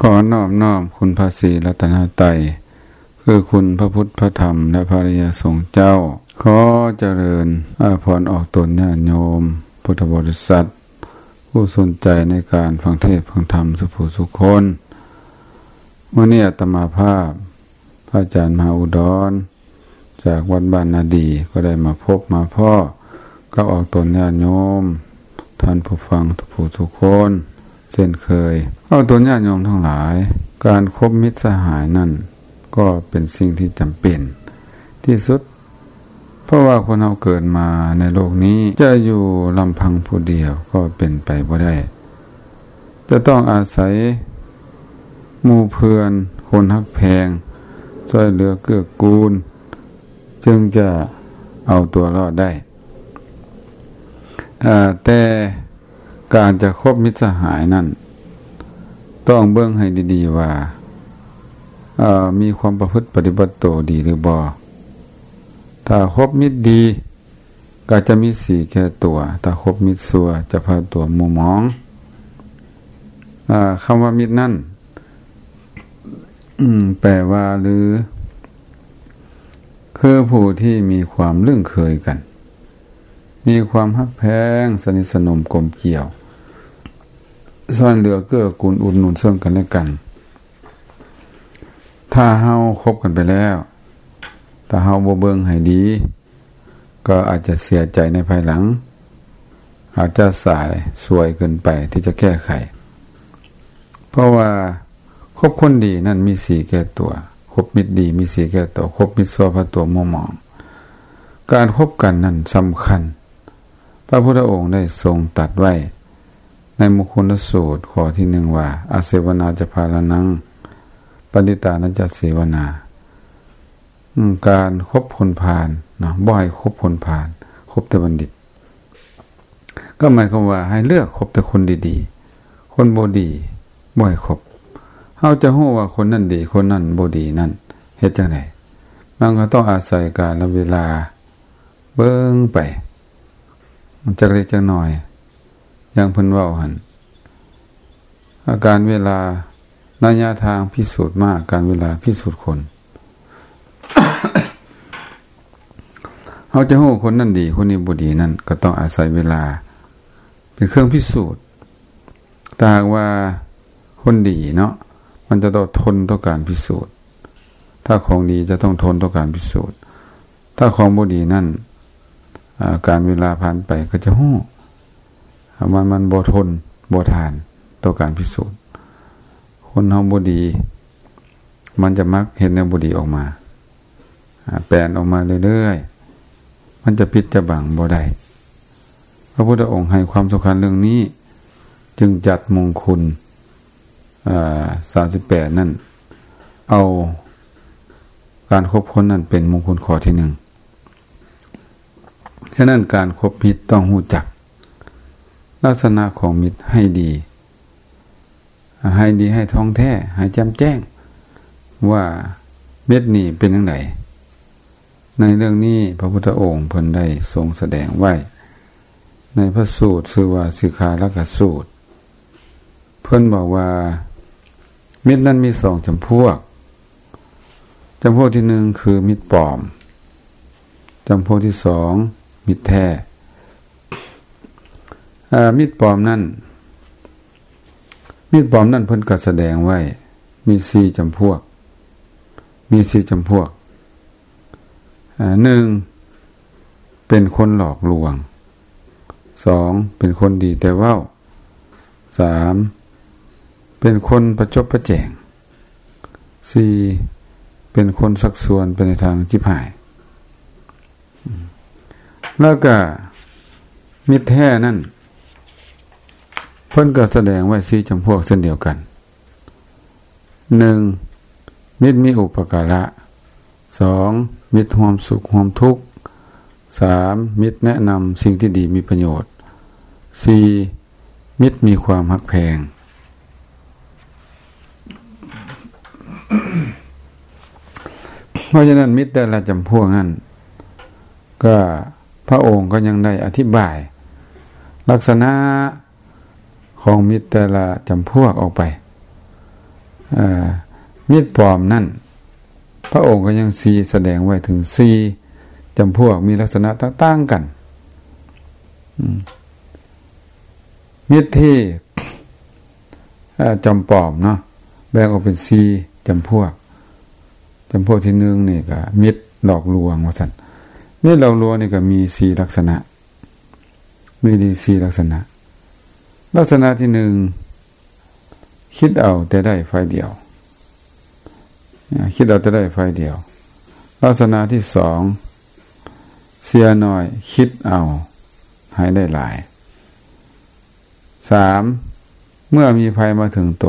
ຂໍນອບນ້ອມຄຸນພະສີລັດຕະນະໄຕ ຄືຄຸນພະພຸດ ພະທຳ ແລະ ພະອະລິຍະສົງເຈົ້າ. ຂໍຈະເລີນອາພອນອອກຕົນຍາດໂຍມພຸດທະບໍລິສັດ ຜູ້ສົນໃຈໃນການຟັງເທດຟັງທຳສຸຜູ້ສຸຄົນ. ມື້ນີ້ອາດຕະມາພາບ ພະອາຈານມະຫາອຸດອນ ຈາກວັດບ້ານນາດີ ກໍໄດ້ມາພົບມາພໍ້ກັບອອກຕົນຍາດໂຍມ ທ່ານຜູ້ຟັງທຸກຜູ້ທຸກຄົນເຊັ່ນເຄີຍ. ອອກຕົນຍາດໂຍມທັງຫຼາຍ, ການຄົບມິດສະຫາຍນັ້ນກໍເປັນສິ່ງທີ່ຈຳເປັນທີ່ສຸດ, ເພາະວ່າຄົນເຮົາເກີດມາໃນໂລກນີ້ຈະຢູ່ລຳພັງຜູ້ດຽວກໍເປັນໄປບໍ່ໄດ້. ຈະຕ້ອງອາໄສໝູ່ເພື່ອນ, ຄົນຮັກແພງ, ຊ່ວຍເຫຼືອເກື້ອກູນ, ຈຶ່ງຈະເອົາຕົວລອດໄດ້. ເອີ ແຕ່ການຈະຄົບມິດສະຫາຍນັ້ນ ຕ້ອງເບິ່ງໃຫ້ດີໆວ່າ ເອີ ມີຄວາມປະພຶດປະຕິບັດໂຕດີຫຼືບໍ່. ຖ້າຄົບມິດດີ ກໍຈະມີສີແກ່ຕົວ, ຖ້າຄົບມິດຊົ່ວຈະພາຕົວມົວໝອງ. ອາ ຄຳວ່າມິດນັ້ນ ອາ ແປວ່າ ຫຼື ຄືຜູ້ທີ່ມີຄວາມລຶ້ງເຄີຍກັນ, ມີຄວາມຮັກແພງ, ສະໜິດສະໜົມກົມກ່ຽວ, ຊ່ວຍເຫຼືອເກື້ອກູນ, ອຸດໜູນເຊິ່ງກັນແລະກັນ. ຖ້າເຮົາຄົບກັນໄປແລ້ວ, ຖ້າເຮົາບໍ່ເບິ່ງໃຫ້ດີ, ກໍອາດຈະເສຍໃຈໃນພາຍຫຼັງ, ອາດຈະສາຍສວຍເກີນໄປທີ່ຈະແກ້ໄຂ. ເພາະວ່າຄົບຄົນດີນັ້ນມີສີແກ່ຕົວ, ຄົບມິດດີມີສີແກ່ຕົວ, ຄົບມິດຊົ່ວພາຕົວມົວໝອງ. ການຄົບກັນນັ້ນສຳຄັນ. ພະພຸດທະອົງໄດ້ຊົງຕັດໄວ້ໃນມຸງຄຸນລະສູດຂໍ້ທີໜຶ່ງວ່າ ອະເສວະນາຈະພາລະນັງ ປະດິດຕານະຈະເສວະນາ. ອາ ການຄົບຄົນພານເນາະ, ບໍ່ໃຫ້ຄົບຄົນພານ, ຄົບແຕ່ບັນດິດ. ກໍໝາຍຄວາມວ່າໃຫ້ເລືອກຄົບແຕ່ຄົນດີໆ, ຄົນບໍ່ດີບໍ່ໃຫ້ຄົບ. ເຮົາຈະຮູ້ວ່າຄົນນັ້ນດີ, ຄົນນັ້ນບໍ່ດີນັ້ນເຮັດຈັ່ງໃດ? ມັນກໍຕ້ອງອາໄສການລະເວລາເບິ່ງໄປ ຈັກເລັກຈັກນ້ອຍ. ຢ່າງເພິ່ນເວົ້າຫັ້ນ ອາ ການເວລາ ໄລຍະທາງພິສູດມ້າ, ການເວລາພິສູດຄົນ. ເຮົາຈະຮູ້ຄົນນັ້ນດີ, ຄົນນີ້ບໍ່ດີນັ້ນ ກໍຕ້ອງອາໄສເວລາເປັນເຄື່ອງພິສູດ. ຖ້າຫາກວ່າຄົນດີເນາະ, ມັນຈະຕ້ອງທົນຕໍ່ການພິສູດ. ຖ້າຂອງດີຈະຕ້ອງທົນຕໍ່ການພິສູດ. ຖ້າຂອງບໍ່ດີນັ້ນ ອາ ການເວລາຜ່ານໄປກໍຈະຮູ້ ມັນ ມັນບໍ່ທົນບໍ່ທານຕໍ່ການພິສູດ. ຄົນເຮົາບໍ່ດີ ມັນຈະມັກເຮັດແນວບໍ່ດີອອກມາ, ອາ ແປນອອກມາເລື້ອຍໆ, ມັນຈະປິດຈະບັງບໍ່ໄດ້. ພະພຸດທະອົງໃຫ້ຄວາມສຳຄັນເລື່ອງນີ້, ຈຶ່ງຈັດມຸງຄຸນ ເອີ ສາມສິບແປດນັ້ນ ເອົາການຄົບຄົນນັ້ນເປັນມຸງຄຸນຂໍ້ທີໜຶ່ງ. ສະນັ້ນ ການຄົບມິດຕ້ອງຮູ້ຈັກລັກສະນະຂອງມິດໃຫ້ດີ, ໃຫ້ດີ, ໃຫ້ທ່ອງແທ້, ໃຫ້ແຈ່ມແຈ້ງວ່າມິດນີ້ເປັນຈັ່ງໃດ. ໃນເລື່ອງນີ້ ພະພຸດທະອົງເພິ່ນໄດ້ຊົງສະແດງໄວ້ໃນພະສູດຊື່ວ່າສິກຂາລະກະສູດ. ເພິ່ນບອກວ່າ ມິດນັ້ນມີສອງຈຳພວກ. ຈຳພວກທີໜຶ່ງຄືມິດປອມ, ຈຳພວກທີສອງມິດແທ້. ເອີ ມິດປອມນັ້ນ, ມິດປອມນັ້ນເພິ່ນກໍສະແດງໄວ້ມີສີ່ຈຳພວກ, ມີສີ່ຈຳພວກ. ເອີ ໜຶ່ງ ເປັນຄົນຫຼອກລວງ, ສອງ ເປັນຄົນດີແຕ່ເວົ້າ, ສາມ ເປັນຄົນປະຈົບປະແຈງ, ສີ່ ເປັນຄົນຊັກຊວນໄປໃນທາງຈິບຫາຍ. ແລ້ວກະມິດແທ້ນັ້ນ ເພິ່ນກໍສະແດງໄວ້ສີ່ຈຳພວກເຊັ່ນດຽວກັນ. ໜຶ່ງ ມິດມີອຸປະກາລະ, ສອງ ມິດຮ່ວມສຸກຮ່ວມທຸກ, ສາມ ມິດແນະນຳສິ່ງທີ່ດີມີປະໂຫຍດ, ສີ່ ມິດມີຄວາມຮັກແພງ. ເພາະສະນັ້ນ ມິດແຕ່ລະຈຳພວກນັ້ນ ກໍພະອົງກໍຍັງໄດ້ອະທິບາຍລັກສະນະຂອງມິດແຕ່ລະຈຳພວກອອກໄປ. ເອີ ມິດປອມນັ້ນ ພະອົງກໍຍັງຊີ້ສະແດງໄວ້ເຖິງສີ່ຈຳພວກ ມີລັກສະນະຕ່າງໆກັນ. ອືມ ມິດທີ່ ເອີ ຈອມປອມເນາະ ແບ່ງອອກເປັນສີ່ຈຳພວກ. ຈຳພວກທີໜຶ່ງນີ້ກໍມິດຫຼອກລວງວ່າຊັ້ນ. ມິດຫຼອກລວງນີ້ກໍມີສີ່ລັກສະນະ. ມີດີສີ່ລັກສະນະ. ລັກສະນະທີໜຶ່ງ ຄິດເອົາແຕ່ໄດ້ຝ່າຍດຽວ. ອາ ຄິດເອົາແຕ່ໄດ້ຝ່າຍດຽວ. ລັກສະນະທີສອງ ເສຍໜ້ອຍ ຄິດເອົາໃຫ້ໄດ້ຫຼາຍ. ສາມ ເມື່ອມີໄພມາເຖິງໂຕ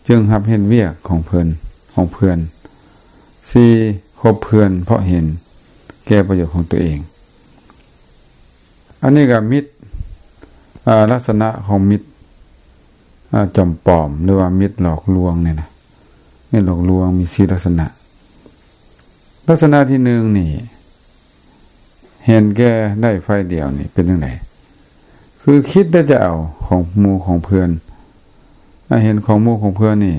ຈຶ່ງຮັບເຮັດວຽກຂອງເພິ່ນ ຂອງເພື່ອນ. ສີ່ ຄົບເພື່ອນເພາະເຫັນແກ່ປະໂຫຍດຂອງຕົວເອງ. ອັນນີ້ກໍມິດ ອາ ລັກສະນະຂອງມິດ ອາ ຈອມປອມ ຫຼືວ່າມິດຫຼອກລວງນີ້ນະ. ມິດຫຼອກລວງມີສີ່ລັກສະນະ. ລັກສະນະທີໜຶ່ງນີ້ ເຫັນແກ່ໄດ້ຝ່າຍດຽວນີ້ເປັນຈັ່ງໃດ? ຄືຄິດແຕ່ຈະເອົາຂອງໝູ່ຂອງເພື່ອນ. ອາ ເຫັນຂອງໝູ່ຂອງເພື່ອນນີ້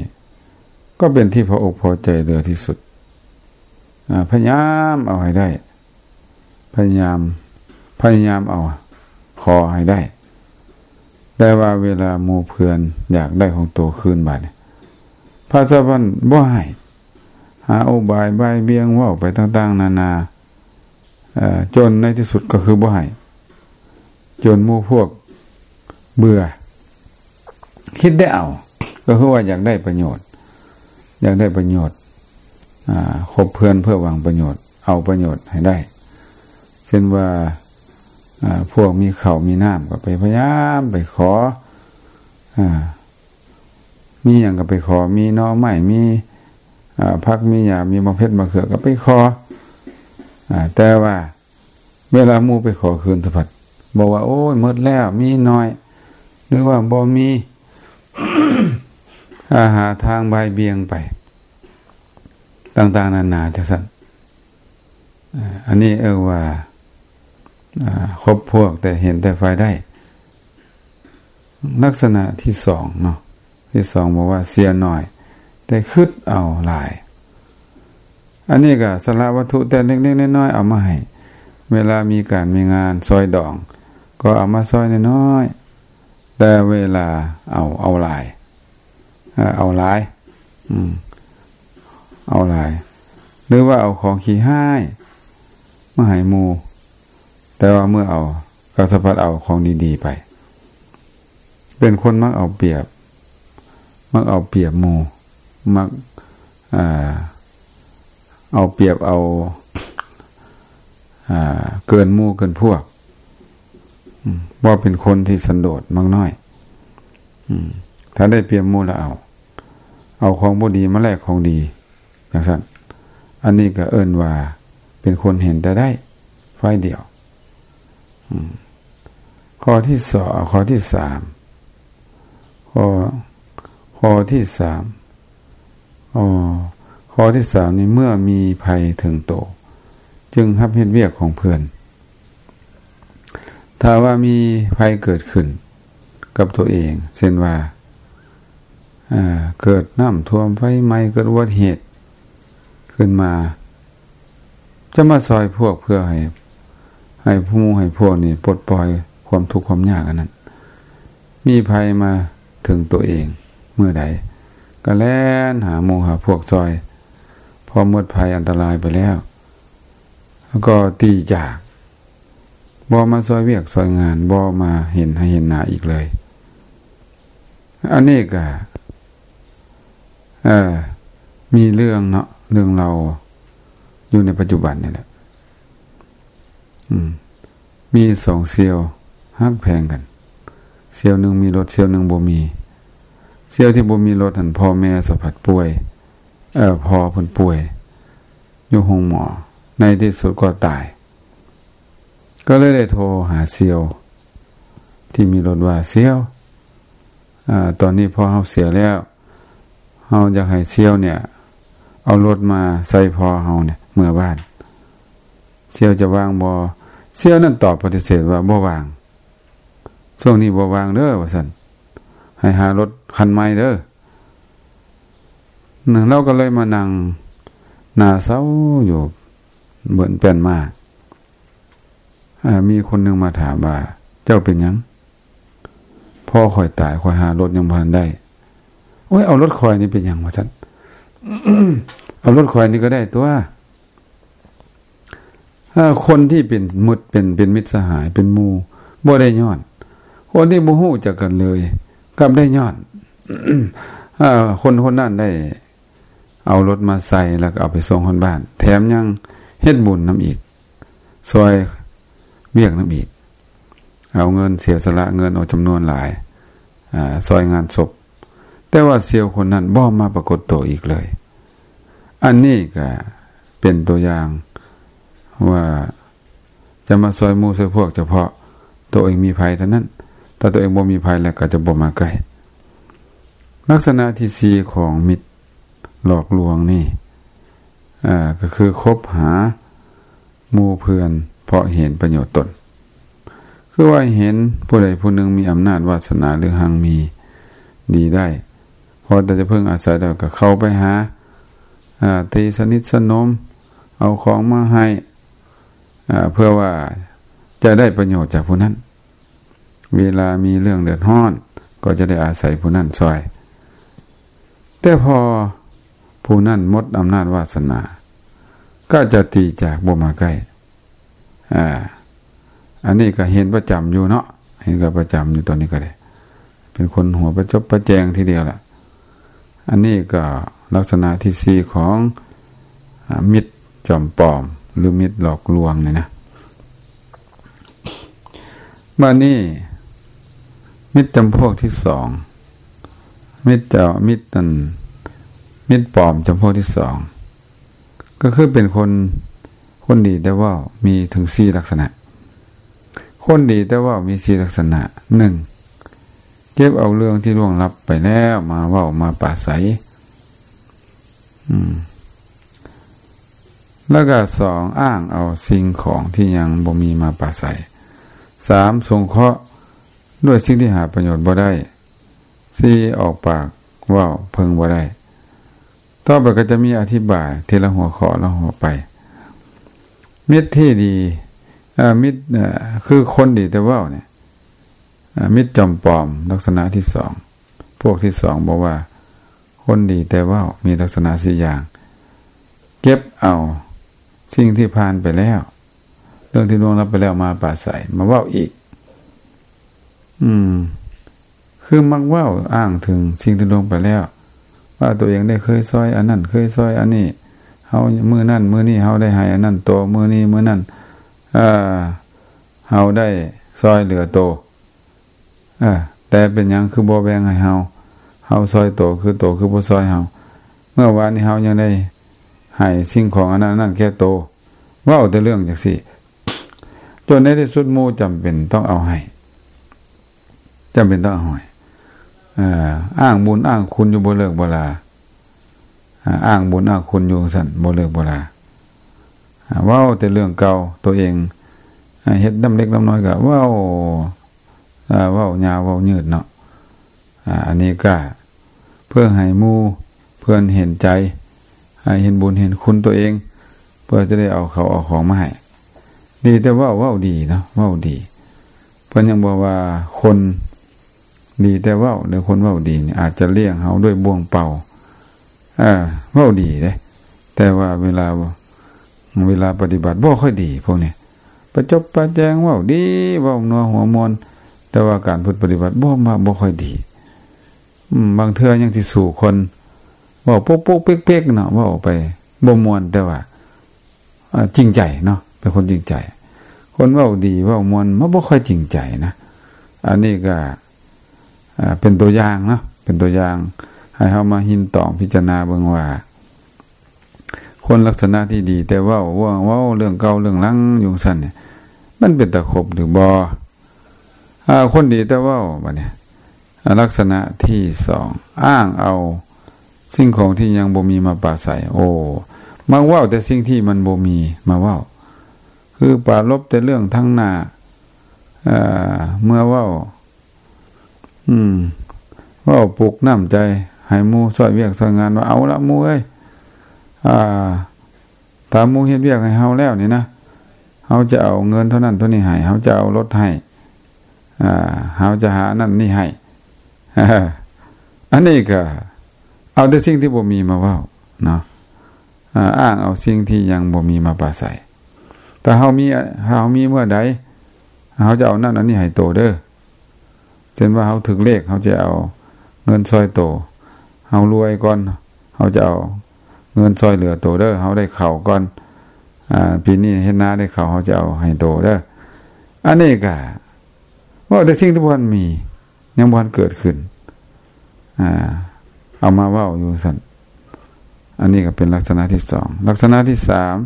ກໍເປັນທີ່ພໍອົກພໍໃຈເຫຼືອທີ່ສຸດ. ອາ ພະຍາຍາມເອົາໃຫ້ໄດ້. ພະຍາຍາມ ພະຍາຍາມເອົາ ຂໍໃຫ້ໄດ້. ແຕ່ວ່າເວລາໝູ່ເພື່ອນຢາກໄດ້ຂອງໂຕຄືນບາດນີ້ ພະເຈົ້າພັນບໍ່ໃຫ້. ຫາອຸບາຍບ່າຍບ່ຽງເວົ້າໄປຕ່າງໆນານາ. ເອີ ຈົນໃນທີ່ສຸດກໍຄືບໍ່ໃຫ້. ຈົນໝູ່ພວກເບື່ອ. ຄິດແຕ່ເອົາ ກໍຄືວ່າຢາກໄດ້ປະໂຫຍດ. ຢາກໄດ້ປະໂຫຍດ. ອາ ຄົບເພື່ອນເພື່ອຫວັງປະໂຫຍດ. ເອົາປະໂຫຍດໃຫ້ໄດ້. ເຊັ່ນວ່າ ອາ ພວກມີເຂົ້າມີນ້ຳກໍໄປພະຍາຍາມໄປຂໍ. ອາ ມີຫຍັງກໍໄປຂໍ. ມີໜໍ່ໄມ້ ມີ ອາ ຜັກ ມີຫຍ້າ ມີໝາກເຜັດ ໝາກເຂືອ ກໍໄປຂໍ. ອາ ແຕ່ວ່າ ເວລາໝູ່ໄປຂໍຄືນສະພັດ ບອກວ່າ ໂອ້ຍ ໝົດແລ້ວ ມີໜ້ອຍ ຫຼືວ່າບໍ່ມີ. ອາ ຫາທາງບ່າຍບ່ຽງໄປ ຕ່າງໆນານາຈັ່ງຊັ້ນ. ອາ ອັນນີ້ເອີ້ນວ່າ ອາ ຄົບພວກແຕ່ເຫັນແຕ່ຝ່າຍໄດ້. ລັກສະນະທີສອງເນາະ ທີສອງບອກວ່າ ເສຍໜ້ອຍ ແຕ່ຄິດເອົາຫຼາຍ. ອັນນີ້ກໍສະຫຼະວັດຖຸແຕ່ເລັກໆນ້ອຍໆເອົາມາໃຫ້. ເວລາມີການມີງານຊອຍດອງ ກໍເອົາມາຊອຍນ້ອຍໆ ແຕ່ເວລາເອົາ ເອົາຫຼາຍ. ເອີ ເອົາຫຼາຍ ອືມ ເອົາຫຼາຍ. ຫຼືວ່າເອົາຂອງຂີ້ຮ້າຍມາໃຫ້ໝູ່ ແຕ່ວ່າເມື່ອເອົາ ກໍສະພັດເອົາຂອງດີໆໄປ. ເປັນຄົນມັກເອົາປຽບ ມັກເອົາປຽບໝູ່ ມັກ ເອົາປຽບເອົາ ເກີນໝູ່ເກີນພວກ. ອືມ ເວົ້າເປັນຄົນທີ່ສັນໂດດມັກນ້ອຍ. ອືມ ຖ້າໄດ້ປຽບໝູ່ແລ້ວເອົາ ເອົາຂອງບໍ່ດີມາແລກຂອງດີ ຈັ່ງຊັ້ນ. ອັນນີ້ກໍເອີ້ນວ່າເປັນຄົນເຫັນແຕ່ໄດ້ຝ່າຍດຽວ. ອືມ ຂໍ້ທີສອງ ຂໍ້ທີສາມ ຂໍ້ ຂໍ້ທີສາມ ອໍ ຂໍ້ທີສາມນີ້ ເມື່ອມີໄພເຖິງໂຕ ຈຶ່ງຮັບເຮັດວຽກຂອງເພື່ອນ. ຖ້າວ່າມີໄພເກີດຂຶ້ນກັບຕົວເອງ ເຊັ່ນວ່າ ເກີດນ້ຳຖ້ວມ ໄຟໄໝ້ ເກີດອຸບັດຕິເຫດຂຶ້ນມາ ຈະມາຊ່ອຍພວກເພື່ອໃຫ້ ໃຫ້ໝູ່ໃຫ້ພວກນີ້ປົດປ່ອຍຄວາມທຸກຄວາມຍາກອັນນັ້ນ. ມີໄພມາເຖິງຕົວເອງເມື່ອໃດ ກໍແລ່ນຫາໝູ່ຫາພວກຊ່ອຍ. ພໍໝົດໄພອັນຕະລາຍໄປແລ້ວ ກໍຕີຈາກ ບໍ່ມາຊ່ອຍວຽກຊ່ອຍງານ ບໍ່ມາເຫັນໃຫ້ເຫັນໜ້າອີກເລີຍ. ອັນນີ້ກະ ເອີ ມີເລື່ອງເນາະ ເລື່ອງເລົ່າຢູ່ໃນປັດຈຸບັນນີ້ແຫຼະ. ອືມ ມີສອງສ່ຽວຮັກແພງກັນ ສ່ຽວໜຶ່ງມີລົດ ສ່ຽວໜຶ່ງບໍ່ມີ. ສ່ຽວທີ່ບໍ່ມີລົດຫັ້ນ ພໍ່ແມ່ສະພັດປ່ວຍ ເອີ ພໍ່ເພິ່ນປ່ວຍຢູ່ໂຮງໝໍ ໃນທີ່ສຸດກໍຕາຍ. ກໍເລີຍໄດ້ໂທຫາສ່ຽວທີ່ມີລົດວ່າ ສ່ຽວ ອາ ຕອນນີ້ພໍ່ເຮົາເສຍແລ້ວ ເຮົາຢາກໃຫ້ສ່ຽວເນ່ຍເອົາລົດມາໃສ່ພໍ່ເຮົາເນ່ຍເມືອບ້ານ ສ່ຽວຈະວ່າງບໍ່? ສ່ຽວນັ້ນຕອບປະຕິເສດວ່າບໍ່ວ່າງ ຊ່ວງນີ້ບໍ່ວ່າງເດີ ວ່າຊັ້ນ ໃຫ້ຫາລົດຄັນໃໝ່ເດີ. ລາວກໍເລີຍມານັ່ງໜ້າເສົ້າຢູ່ເບິ່ງແປ້ນມາ. ເອີ ມີຄົນໜຶ່ງມາຖາມວ່າ ເຈົ້າເປັນຫຍັງ? ພໍ່ຂ້ອຍຕາຍ ຂ້ອຍຫາລົດຍັງບໍ່ທັນໄດ້. ໂອ້ຍ ເອົາລົດຂ້ອຍນີ້ເປັນຫຍັງ? ວ່າຊັ້ນ. ເອົາລົດຂ້ອຍນີ້ກໍໄດ້ຕົວະ. ເອີ ຄົນທີ່ເປັນມິດ ເປັນ ເປັນມິດສະຫາຍ ເປັນໝູ່ ບໍ່ໄດ້ຍ້ອນ. ຄົນທີ່ບໍ່ຮູ້ຈັກກັນເລີຍ ກັບໄດ້ຍ້ອນ. ເອີ ຄົນຄົນນັ້ນໄດ້ເອົາລົດມາໃສ່ ແລ້ວກໍເອົາໄປສົ່ງຮອດບ້ານ ແຖມຍັງເຮັດບຸນນຳອີກ ຊ່ອຍວຽກນຳອີກ ເອົາເງິນ ເສຍສະຫຼະເງິນອອກຈຳນວນຫຼາຍ ອາ ຊ່ອຍງານສົບ. ແຕ່ວ່າສ່ຽວຄົນນັ້ນບໍ່ມາປາກົດໂຕອີກເລີຍ. ອັນນີ້ກະເປັນຕົວຢ່າງວ່າຈະມາຊ່ອຍໝູ່ຊ່ອຍພວກ ສະເພາະໂຕເອງມີໄພເທົ່ານັ້ນ. ຖ້າໂຕເອງບໍ່ມີໄພແລ້ວ ກໍຈະບໍ່ມາໃກ້. ລັກສະນະທີສີ່ຂອງມິດຫຼອກລວງນີ້ ອາ ກໍຄືຄົບຫາ ໝູ່ເພື່ອນເພາະເຫັນປະໂຫຍດຕົນ. ຄືວ່າເຫັນຜູ້ໃດຜູ້ໜຶ່ງມີອຳນາດວາສະໜາ ຫຼື ຮັ່ງມີດີໄດ້ ພໍແຕ່ຈະເພິ່ງອາໄສແລ້ວ ກໍເຂົ້າໄປຫາ ອາ ຕີສະໜິດສະໜົມ ເອົາຂອງມາໃຫ້ ອາ ເພື່ອວ່າຈະໄດ້ປະໂຫຍດຈາກຜູ້ນັ້ນ. ເວລາມີເລື່ອງເດືອດຮ້ອນ ກໍຈະໄດ້ອາໄສຜູ້ນັ້ນຊ່ອຍ. ແຕ່ພໍຜູ້ນັ້ນໝົດອຳນາດວາສະໜາ ກໍຈະຕີຈາກ ບໍ່ມາໃກ້. ອາ ອັນນີ້ກໍເຫັນປະຈຳຢູ່ເນາະ, ເຫັນກັນປະຈຳຢູ່ຕອນນີ້ກໍໄດ້. ເປັນຄົນຫົວປະຈົບປະແຈງທີດຽວລະ. ອັນນີ້ກໍລັກສະນະທີສີ່ຂອງ ອາ ມິດຈອມປອມ ຫຼື ມິດຫຼອກລວງນີ້ນະ. ບາດນີ້ ມິດຈຳພວກທີສອງ ມິດເຈົ້າ ມິດນັ້ນ ມິດປອມຈຳພວກທີສອງ ກໍຄືເປັນຄົນ ຄົນດີແຕ່ເວົ້າ ມີເຖິງສີ່ລັກສະນະ. ຄົນດີແຕ່ເວົ້າມີສີ່ລັກສະນະ. ໜຶ່ງ ເກັບເອົາເລື່ອງທີ່ລ່ວງລັບໄປແລ້ວມາເວົ້າມາປາໄສ. ອືມ ແລ້ວກໍສອງ ອ້າງເອົາສິ່ງຂອງທີ່ຍັງບໍ່ມີມາປາໄສ. ສາມ ສົງເຄາະດ້ວຍສິ່ງທີ່ຫາປະໂຫຍດບໍ່ໄດ້. ສີ່ ອອກປາກເວົ້າເພິ່ງບໍ່ໄດ້. ຕໍ່ໄປກໍຈະມີອະທິບາຍທີລະຫົວຂໍ້ລະຫົວໄປ. ມິດທີ່ດີ ເອີ ມິດ ເອີ ຄືຄົນດີແຕ່ເວົ້ານີ້ ເອີ ມິດຈອມປອມ ລັກສະນະທີສອງ ພວກທີສອງ ບອກວ່າ ຄົນດີແຕ່ເວົ້າມີລັກສະນະສີ່ຢ່າງ. ເກັບເອົາສິ່ງທີ່ຜ່ານໄປແລ້ວ ເລື່ອງທີ່ລ່ວງລັບໄປແລ້ວມາປາໄສ ມາເວົ້າອີກ. ອືມ ຄືມັກເວົ້າອ້າງເຖິງສິ່ງທີ່ລ່ວງໄປແລ້ວ ວ່າຕົວເອງໄດ້ເຄີຍຊ່ອຍອັນນັ້ນ ເຄີຍຊ່ອຍອັນນີ້ ເຮົາມື້ນັ້ນມື້ນີ້ເຮົາໄດ້ໃຫ້ອັນນັ້ນໂຕ ມື້ນີ້ມື້ນັ້ນ ເອີ ເຮົາໄດ້ຊ່ອຍເຫຼືອໂຕ. ເອີ ແຕ່ເປັນຫຍັງຄືບໍ່ແບ່ງໃຫ້ເຮົາ? ເຮົາຊ່ອຍໂຕ ຄືໂຕຄືບໍ່ຊ່ອຍເຮົາ? ເມື່ອວານນີ້ເຮົາຍັງໄດ້ໃຫ້ສິ່ງຂອງອັນນັ້ນອັນນັ້ນແກ່ໂຕ. ເວົ້າແຕ່ເລື່ອງຈັ່ງຊີ້ ຈົນໃນທີ່ສຸດໝູ່ຈຳເປັນຕ້ອງເອົາໃຫ້ ຈຳເປັນຕ້ອງເອົາໃຫ້. ເອີ ອ້າງບຸນອ້າງຄຸນຢູ່ບໍ່ເລີກບໍ່ລາ. ອາ ອ້າງບຸນອ້າງຄຸນຢູ່ຈັ່ງຊັ້ນ ບໍ່ເລີກບໍ່ລາ. ອາ ເວົ້າແຕ່ເລື່ອງເກົ່າ ຕົວເອງ ອາ ເຮັດນ້ຳເລັກນ້ຳນ້ອຍກໍເວົ້າ ອາ ເວົ້າຍາວເວົ້າຍືດເນາະ. ອາ ອັນນີ້ກໍເພື່ອໃຫ້ໝູ່ເພື່ອນເຫັນໃຈ ໃຫ້ເຫັນບຸນເຫັນຄຸນຕົວເອງ ເພື່ອຈະໄດ້ເອົາເຂົ້າເອົາຂອງມາໃຫ້. ດີແຕ່ເວົ້າ ເວົ້າດີເນາະ ເວົ້າດີ. ເພິ່ນຍັງບອກວ່າຄົນດີແຕ່ເວົ້າ ຫຼື ຄົນເວົ້າດີນີ້ອາດຈະລ້ຽງເຮົາດ້ວຍບ່ວງເປົ່າ ເອີ ເວົ້າດີເດ້ ແຕ່ວ່າເວລາ ເວລາປະຕິບັດບໍ່ຄ່ອຍດີ. ພວກນີ້ປະຈົບປະແຈງ ເວົ້າດີ ເວົ້ານົວຫົວມ່ວນ ແຕ່ວ່າການພຶດປະຕິບັດບໍ່ ບໍ່ຄ່ອຍດີ. ອືມ ບາງເທື່ອຍັງຊິສູ້ຄົນເວົ້າປົກໆເປັກໆເນາະ ເວົ້າໄປບໍ່ມ່ວນ ແຕ່ວ່າ ອາ ຈິງໃຈເນາະ ເປັນຄົນຈິງໃຈ. ຄົນເວົ້າດີເວົ້າມ່ວນມັນບໍ່ຄ່ອຍຈິງໃຈນະ. ອັນນີ້ກໍ ອາ ເປັນຕົວຢ່າງເນາະ ເປັນຕົວຢ່າງໃຫ້ເຮົາມາຮິນຕອງພິຈາລະນາເບິ່ງວ່າ ຄົນລັກສະນະທີ່ດີແຕ່ເວົ້າ ເວົ້າ ເວົ້າເລື່ອງເກົ່າເລື່ອງຫຼັງຢູ່ຊັ້ນນີ້ ມັນເປັນຕາຄົບຫຼືບໍ່? ອາ ຄົນດີແຕ່ເວົ້າ ບາດນີ້ ອາ ລັກສະນະທີສອງ ອ້າງເອົາສິ່ງຂອງທີ່ຍັງບໍ່ມີມາປາໄສ. ໂອ້ ມັກເວົ້າແຕ່ສິ່ງທີ່ມັນບໍ່ມີມາເວົ້າ ຄືປາລົບແຕ່ເລື່ອງທາງໜ້າ ເອີ ເມື່ອເວົ້າ ອືມ ເວົ້າປຸກນ້ຳໃຈ ໃຫ້ໝູ່ຊ່ອຍວຽກຊ່ອຍງານ ວ່າ ເອົາລະໝູ່ເອີຍ ອາ ຖ້າໝູ່ເຮັດວຽກໃຫ້ເຮົາແລ້ວນີ້ນະ ເຮົາຈະເອົາເງິນເທົ່ານັ້ນເທົ່ານີ້ໃຫ້ ເຮົາຈະເອົາລົດໃຫ້ ອາ ເຮົາຈະຫາອັນນັ້ນນີ້ໃຫ້. ອັນນີ້ກໍເອົາແຕ່ສິ່ງທີ່ບໍ່ມີມາເວົ້າເນາະ ອາ ອ້າງເອົາສິ່ງທີ່ຍັງບໍ່ມີມາປາໄສ. ຖ້າເຮົາມີ ຖ້າເຮົາມີເມື່ອໃດ ເຮົາຈະເອົານັ້ນອັນນີ້ໃຫ້ໂຕເດີ. ເຊັ່ນວ່າເຮົາຖືກເລກ ເຮົາຈະເອົາເງິນຊ່ອຍໂຕ ເຮົາລວຍກ່ອນ ເຮົາຈະເອົາເງິນຊ່ອຍເຫຼືອໂຕເດີ ເຮົາໄດ້ເຂົ້າກ່ອນ ອາ ປີນີ້ເຮັດນາໄດ້ເຂົ້າ ເຮົາຈະເອົາໃຫ້ໂຕເດີ. ອັນນີ້ກະເວົ້າແຕ່ສິ່ງທີ່ບໍ່ທັນມີ ຍັງບໍ່ທັນເກີດຂຶ້ນ ອາ ເອົາມາເວົ້າຢູ່ຊັ້ນ. ອັນນີ້ກໍເປັນລັກສະນະທີສອງ. ລັກສະນະທີສາມ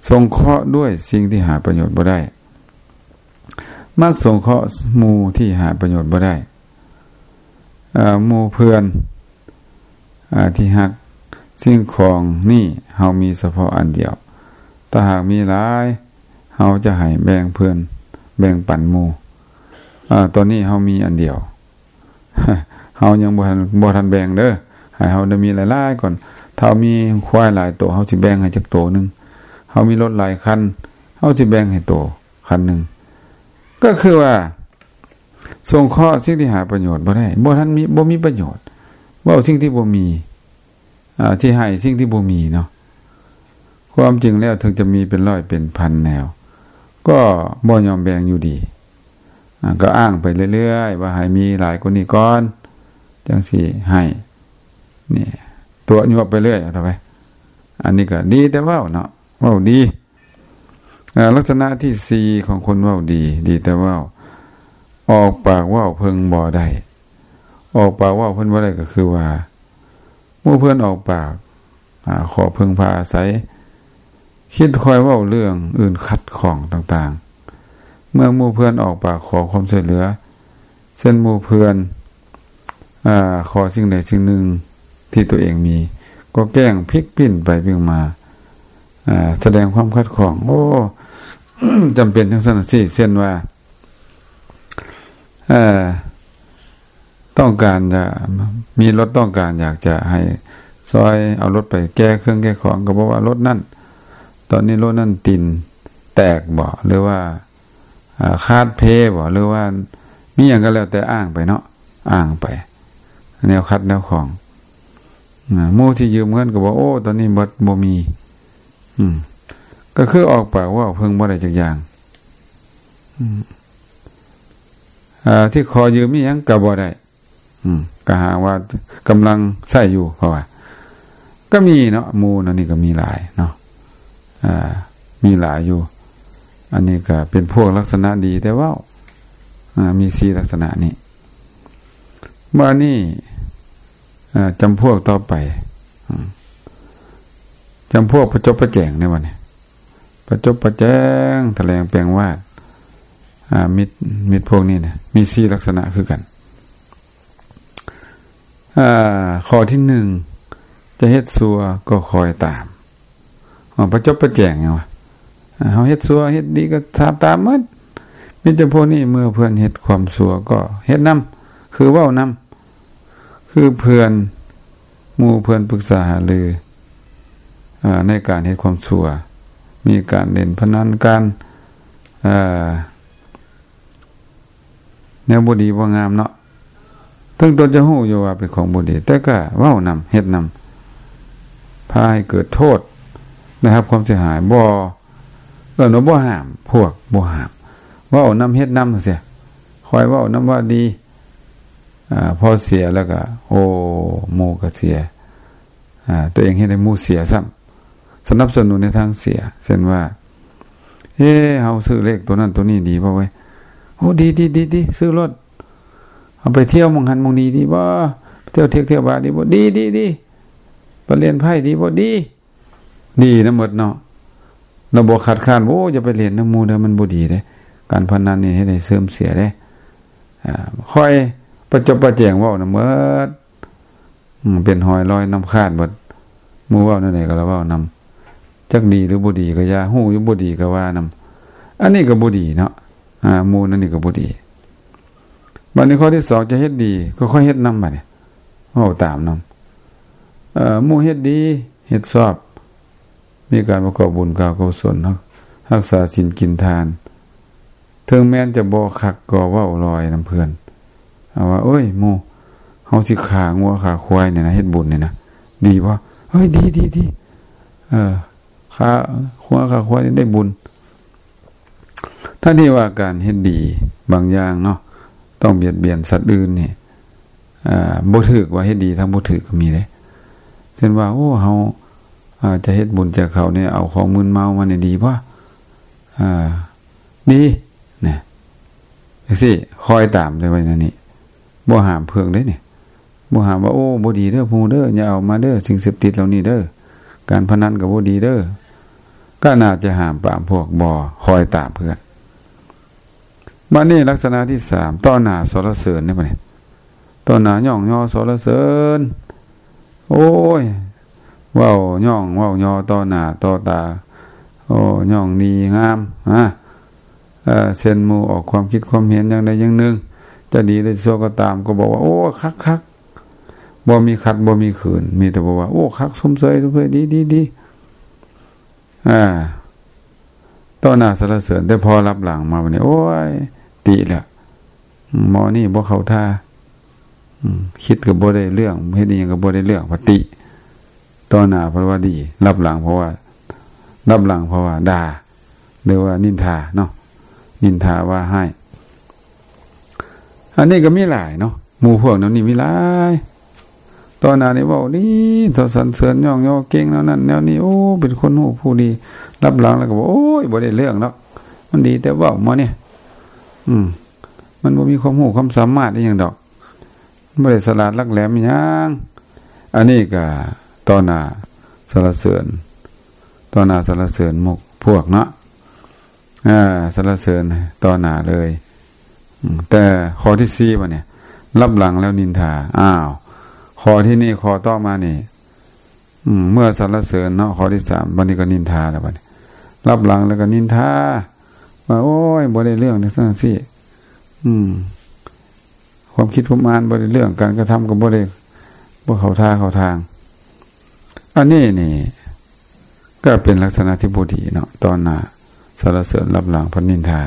ສົງເຄາະດ້ວຍສິ່ງທີ່ຫາປະໂຫຍດບໍ່ໄດ້. ມັກສົງເຄາະໝູ່ທີ່ຫາປະໂຫຍດບໍ່ໄດ້. ເອີ ໝູ່ເພື່ອນ ອາ ທີ່ຮັກ ສິ່ງຂອງນີ້ເຮົາມີສະເພາະອັນດຽວ. ຖ້າຫາກມີຫຼາຍ ເຮົາຈະໃຫ້ແບ່ງເພື່ອນ ແບ່ງປັນໝູ່. ອາ ຕອນນີ້ເຮົາມີອັນດຽວ ເຮົາຍັງບໍ່ທັນ ບໍ່ທັນແບ່ງເດີ ໃຫ້ເຮົາໄດ້ມີຫຼາຍໆກ່ອນ. ຖ້າເຮົາມີຄວາຍຫຼາຍໂຕ ເຮົາຊິແບ່ງໃຫ້ຈັກໂຕໜຶ່ງ. ເຮົາມີລົດຫຼາຍຄັນ ເຮົາຊິແບ່ງໃຫ້ໂຕຄັນໜຶ່ງ. ກໍຄືວ່າ ສົງເຄາະສິ່ງທີ່ຫາປະໂຫຍດບໍ່ໄດ້ ບໍ່ທັນມີ ບໍ່ມີປະໂຫຍດ. ເວົ້າສິ່ງທີ່ບໍ່ມີ ອາ ທີ່ໃຫ້ສິ່ງທີ່ບໍ່ມີເນາະ. ຄວາມຈິງແລ້ວເຖິງຈະມີເປັນຮ້ອຍເປັນພັນແນວ ກໍບໍ່ຍອມແບ່ງຢູ່ດີ. ອາ ກໍອ້າງໄປເລື້ອຍໆ ວ່າໃຫ້ມີຫຼາຍກວ່ານີ້ກ່ອນ ຈັ່ງຊິໃຫ້. ນີ້ຕົວະຍົວະໄປເລື້ອຍ ເອົາເທົ່າໄປ. ອັນນີ້ກໍດີແຕ່ເວົ້າເນາະ ເວົ້າດີ. ອາ ລັກສະນະທີສີ່ຂອງຄົນເວົ້າດີ ດີແຕ່ເວົ້າ ອອກປາກເວົ້າເພິ່ງບໍ່ໄດ້. ອອກປາກເວົ້າເພິ່ນບໍ່ໄດ້ ກໍຄືວ່າ ໝູ່ເພື່ອນອອກປາກ ອາ ຂໍເພິ່ງພາອາໄສ ຄິດຄອຍເວົ້າເລື່ອງອື່ນຂັດຂ້ອງຕ່າງໆ. ເມື່ອໝູ່ເພື່ອນອອກປາກຂໍຄວາມຊ່ວຍເຫຼືອ ເຊັ່ນໝູ່ເພື່ອນ ອາ ຂໍສິ່ງໃດສິ່ງໜຶ່ງທີ່ຕົວເອງມີ ກໍແກ້ງພິກປິ່ນໄປປິ່ນມາ ອາ ສະແດງຄວາມຂັດຂ້ອງ. ໂອ້ ຈຳເປັນຈັ່ງຊັ້ນຊີ້ ເຊັ່ນວ່າ ເອີ ຕ້ອງການຈະມີລົດ ຕ້ອງການຢາກຈະໃຫ້ຊ່ອຍເອົາລົດໄປແກ່ເຄື່ອງແກ່ຂອງ ກໍບອກວ່າລົດນັ້ນ ຕອນນີ້ລົດນັ້ນຕີນແຕກບໍ ຫຼືວ່າ ອາ ຂາດເພບໍ ຫຼືວ່າມີຫຍັງກໍແລ້ວແຕ່ ອ້າງໄປເນາະ ອ້າງໄປ ແນວຂັດແນວຂ້ອງ. ອາ ໝູ່ທີ່ຢືມເງິນກໍບອກ ໂອ້ ຕອນນີ້ບໍ່ ບໍ່ມີ. ອືມ ກໍຄືອອກປາກເວົ້າເພິ່ງບໍ່ໄດ້ຈັກຢ່າງ. ອາ ທີ່ຂໍຢືມອີ່ຫຍັງກໍບໍ່ໄດ້. ອືມ ກໍຫາວ່າກຳລັງໃຊ້ຢູ່ ເພາະວ່າກໍມີເນາະ ໝູ່ນັ້ນນີ້ກໍມີຫຼາຍເນາະ ອາ ມີຫຼາຍຢູ່. ອັນນີ້ກໍເປັນພວກລັກສະນະດີແຕ່ເວົ້າ ອາ ມີສີ່ລັກສະນະນີ້. ບາດນີ້ ອາ ຈຳພວກຕໍ່ໄປ ອາ ຈຳພວກປະຈົບປະແຈງໃນວັນນີ້ ປະຈົບປະແຈງ ຖະແຫຼງແປງວາດ ອາ ມິດ ມິດພວກນີ້ນະ ມີສີ່ລັກສະນະຄືກັນ. ອາ ຂໍ້ທີໜຶ່ງ ຈະເຮັດຊົ່ວກໍຄອຍຕາມ. ອາ ປະຈົບປະແຈງຫຍັງວະ? ອາ ເຮົາເຮັດຊົ່ວເຮັດດີກໍຕາມ ຕາມໝົດ. ມີແຕ່ພວກນີ້ ເມື່ອເພື່ອນເຮັດຄວາມຊົ່ວກໍເຮັດນຳ ຄືເວົ້ານຳ ຄືເພື່ອນ ໝູ່ເພື່ອນປຶກສາຫາລື ອາ ໃນການເຮັດຄວາມຊົ່ວ ມີການຫຼິ້ນພະນັນ ການ ອາ ແນວບໍ່ດີບໍ່ງາມເນາະ. ເຖິງຕົນຈະຮູ້ຢູ່ວ່າເປັນຂອງບໍ່ດີ ແຕ່ກໍເວົ້ານຳ ເຮັດນຳ ພາໃຫ້ເກີດໂທດ ໄດ້ຮັບຄວາມເສຍຫາຍ. ບໍ່ ເອີ້ນວ່າບໍ່ຫ້າມ ພວກບໍ່ຫ້າມ ເວົ້ານຳ ເຮັດນຳ ຈັ່ງຊີ້. ຂ້ອຍເວົ້ານຳວ່າດີ ອາ ພໍເສຍແລ້ວກໍ ໂອ້ ໝູ່ກໍເສຍ ອາ ຕົວເອງເຮັດໃຫ້ໝູ່ເສຍຊ້ຳ ສະໜັບສະໜູນໃນທາງເສຍ. ເຊັ່ນວ່າ ເອີ ເຮົາຊື້ເລກຕົວນັ້ນຕົວນີ້ດີບໍ່ເວີຍ? ໂອ້ ດີ ດີ ດີ ຊື້ໂລດ. ເຮົາໄປທ່ຽວໝ່ອງຫັ້ນໝ່ອງນີ້ດີບໍ່? ໄປທ່ຽວເທກທ່ຽວບາດີບໍ່? ດີ ດີ ດີ. ໄປຫຼິ້ນໄພ້ດີບໍ່? ດີ ດີນຳໝົດເນາະ. ລະບໍ່ຄັດຄ້ານ ໂອ້ ຢ່າໄປຫຼິ້ນນຳໝູ່ເດີ ມັນບໍ່ດີເດ້. ການພະນັນນີ້ເຮັດໃຫ້ເສື່ອມເສຍເດ້. ອາ ຂ້ອຍປະຈົບປະແຈງເວົ້ານຳໝົດ. ອືມ ເປັນຮອຍລອຍນ້ຳຂາດເບິດ. ໝູ່ເວົ້າແນວໃດກໍລະເວົ້ານຳ ຈັກດີຫຼືບໍ່ດີກໍຢ່າ ຮູ້ຢູ່ບໍ່ດີກໍວ່ານຳ. ອັນນີ້ກໍບໍ່ດີເນາະ. ອາ ໝູ່ນັ້ນນີ້ກໍບໍ່ດີ. ບັດນີ້ຂໍ້ທີສອງ ຈະເຮັດດີກໍຄ່ອຍເຮັດນຳ ບັດນີ້ ເວົ້າຕາມນຳ. ເອີ ໝູ່ເຮັດດີ ເຮັດຊອບ ມີການປະກອບບຸນການກຸສົນ ຮັກ ຮັກສາສິນກິນທານ ເຖິງແມ່ນຈະບໍ່ຄັກກໍເວົ້າລອຍນຳເພື່ອນ ເອົາວ່າ ໂອ້ຍ ໝູ່ ເຮົາຊິຂ້າງົວຂ້າຄວາຍນີ້ນະ ເຮັດບຸນນີ້ນະ ດີບໍ່? ເອີຍ ດີ ດີ ດີ ເອີ ຂ້າງົວຂ້າຄວາຍໄດ້ບຸນ. ທັງທີ່ວ່າການເຮັດດີບາງຢ່າງເນາະ ຕ້ອງບຽດບຽນສັດອື່ນນີ້ ອ່າ ບໍ່ຖືກ ວ່າເຮັດດີທັງບໍ່ຖືກກໍມີເດ້. ເຊັ່ນວ່າ ໂອ້ ເຮົາ ອ່າ ຈະເຮັດບຸນແຈກເຂົ້ານີ້ ເອົາຂອງມຶນເມົາມານີ້ດີບໍ່? ອ່າ ດີ ນະ ຈັ່ງຊີ້ ຄອຍຕາມແຕ່ວ່າແນວນີ້ ບໍ່ຫ້າມເພິ່ງເດ້ນີ້ ບໍ່ຫ້າມວ່າ ໂອ້ ບໍ່ດີເດີ ໝູ່ເດີ ຢ່າເອົາມາເດີ ສິ່ງເສບຕິດເຫຼົ່ານີ້ເດີ ການພະນັນກໍບໍ່ດີເດີ. ກໍໜ້າຈະຫ້າມປາມພວກບໍ່ຄອຍຕາມເພື່ອນ. ບັດນີ້ລັກສະນະທີສາມ ຕໍ່ໜ້າສັນລະເສີນເດ້ບັດນີ້ ຕໍ່ໜ້າຍ້ອງຍໍສັນລະເສີນ ໂອ້ຍ ເວົ້າຍ້ອງເວົ້າຍໍຕໍ່ໜ້າຕໍ່ຕາ ໂອ້ ຍ້ອງດີງາມ ຮະ ເອີ ເຊັ່ນໝູ່ອອກຄວາມຄິດຄວາມເຫັນຢ່າງໃດຢ່າງໜຶ່ງ ຈະດີຫຼືຊົ່ວກໍຕາມ ກໍບອກວ່າ ໂອ້ ຄັກໆ ບໍ່ມີຂັດບໍ່ມີຂືນ ມີແຕ່ບອກວ່າ ໂອ້ ຄັກ ຊົມເຊີຍ ຊົມເຊີຍ ດີ ດີ ດີ ອ່າ ຕໍ່ໜ້າສັນລະເສີນ ແຕ່ພໍລັບຫຼັງມາບັດນີ້ ໂອ້ຍ ຕິແລ້ວ ໝໍນີ້ບໍ່ເຂົ້າທ່າ ອືມ ຄິດກໍບໍ່ໄດ້ເລື່ອງ ເຮັດອີ່ຫຍັງກໍບໍ່ໄດ້ເລື່ອງ ວ່າຕິ ຕໍ່ໜ້າເພິ່ນວ່າດີ ລັບຫຼັງເພິ່ນວ່າ ລັບຫຼັງເພິ່ນວ່າດ່າ ຫຼືວ່ານິນທາເນາະ ນິນທາວ່າຮ້າຍ. ອັນນີ້ກໍມີຫຼາຍເນາະ ໝູ່ພວກແນວນີ້ມີຫຼາຍ. ຕໍ່ໜ້ານີ້ເວົ້າດີ ເທົ່າສັນເສີນຍ້ອງຍໍເກັ່ງແນວນັ້ນແນວນີ້ ໂອ້ ເປັນຄົນຮູ້ຜູ້ດີ ລັບຫຼັງແລ້ວກໍບອກ ໂອ້ຍ ບໍ່ໄດ້ເລື່ອງດອກ ມັນດີແຕ່ເວົ້າໝໍນີ້ ອືມ ມັນບໍ່ມີຄວາມຮູ້ຄວາມສາມາດອີ່ຫຍັງດອກ ບໍ່ໄດ້ສະຫຼາດຫຼັກແຫຼມອີ່ຫຍັງ. ອັນນີ້ກໍຕໍ່ໜ້າສັນລະເສີນ ຕໍ່ໜ້າສັນລະເສີນໝູ່ພວກເນາະ ອ່າ ສັນລະເສີນຕໍ່ໜ້າເລີຍ. ອືມ ແຕ່ຂໍ້ທີສີ່ບັດນີ້ ລັບຫຼັງແລ້ວນິນທາ. ອ້າວ ຂໍ້ທີ່ນີ້ ຂໍ້ຕໍ່ມານີ້ ອືມ ເມື່ອສັນລະເສີນເນາະ ຂໍ້ທີສາມ ບັດນີ້ກໍນິນທາແລ້ວ ບັດນີ້ລັບຫຼັງແລ້ວກໍນິນທາ ວ່າ ໂອ້ຍ ບໍ່ໄດ້ເລື່ອງ ຈັ່ງຊັ້ນຈັ່ງຊີ້ ອືມ ຄວາມຄິດຄວາມອ່ານບໍ່ໄດ້ເລື່ອງ ການກະທຳກໍບໍ່ໄດ້ ບໍ່ເຂົ້າທ່າເຂົ້າທາງ. ອັນນີ້ນີ້ກໍເປັນລັກສະນະທີ່ບໍ່ດີເນາະ ຕໍ່ໜ້າສັນລະເສີນ ລັບຫຼັງພັດນິນທາ.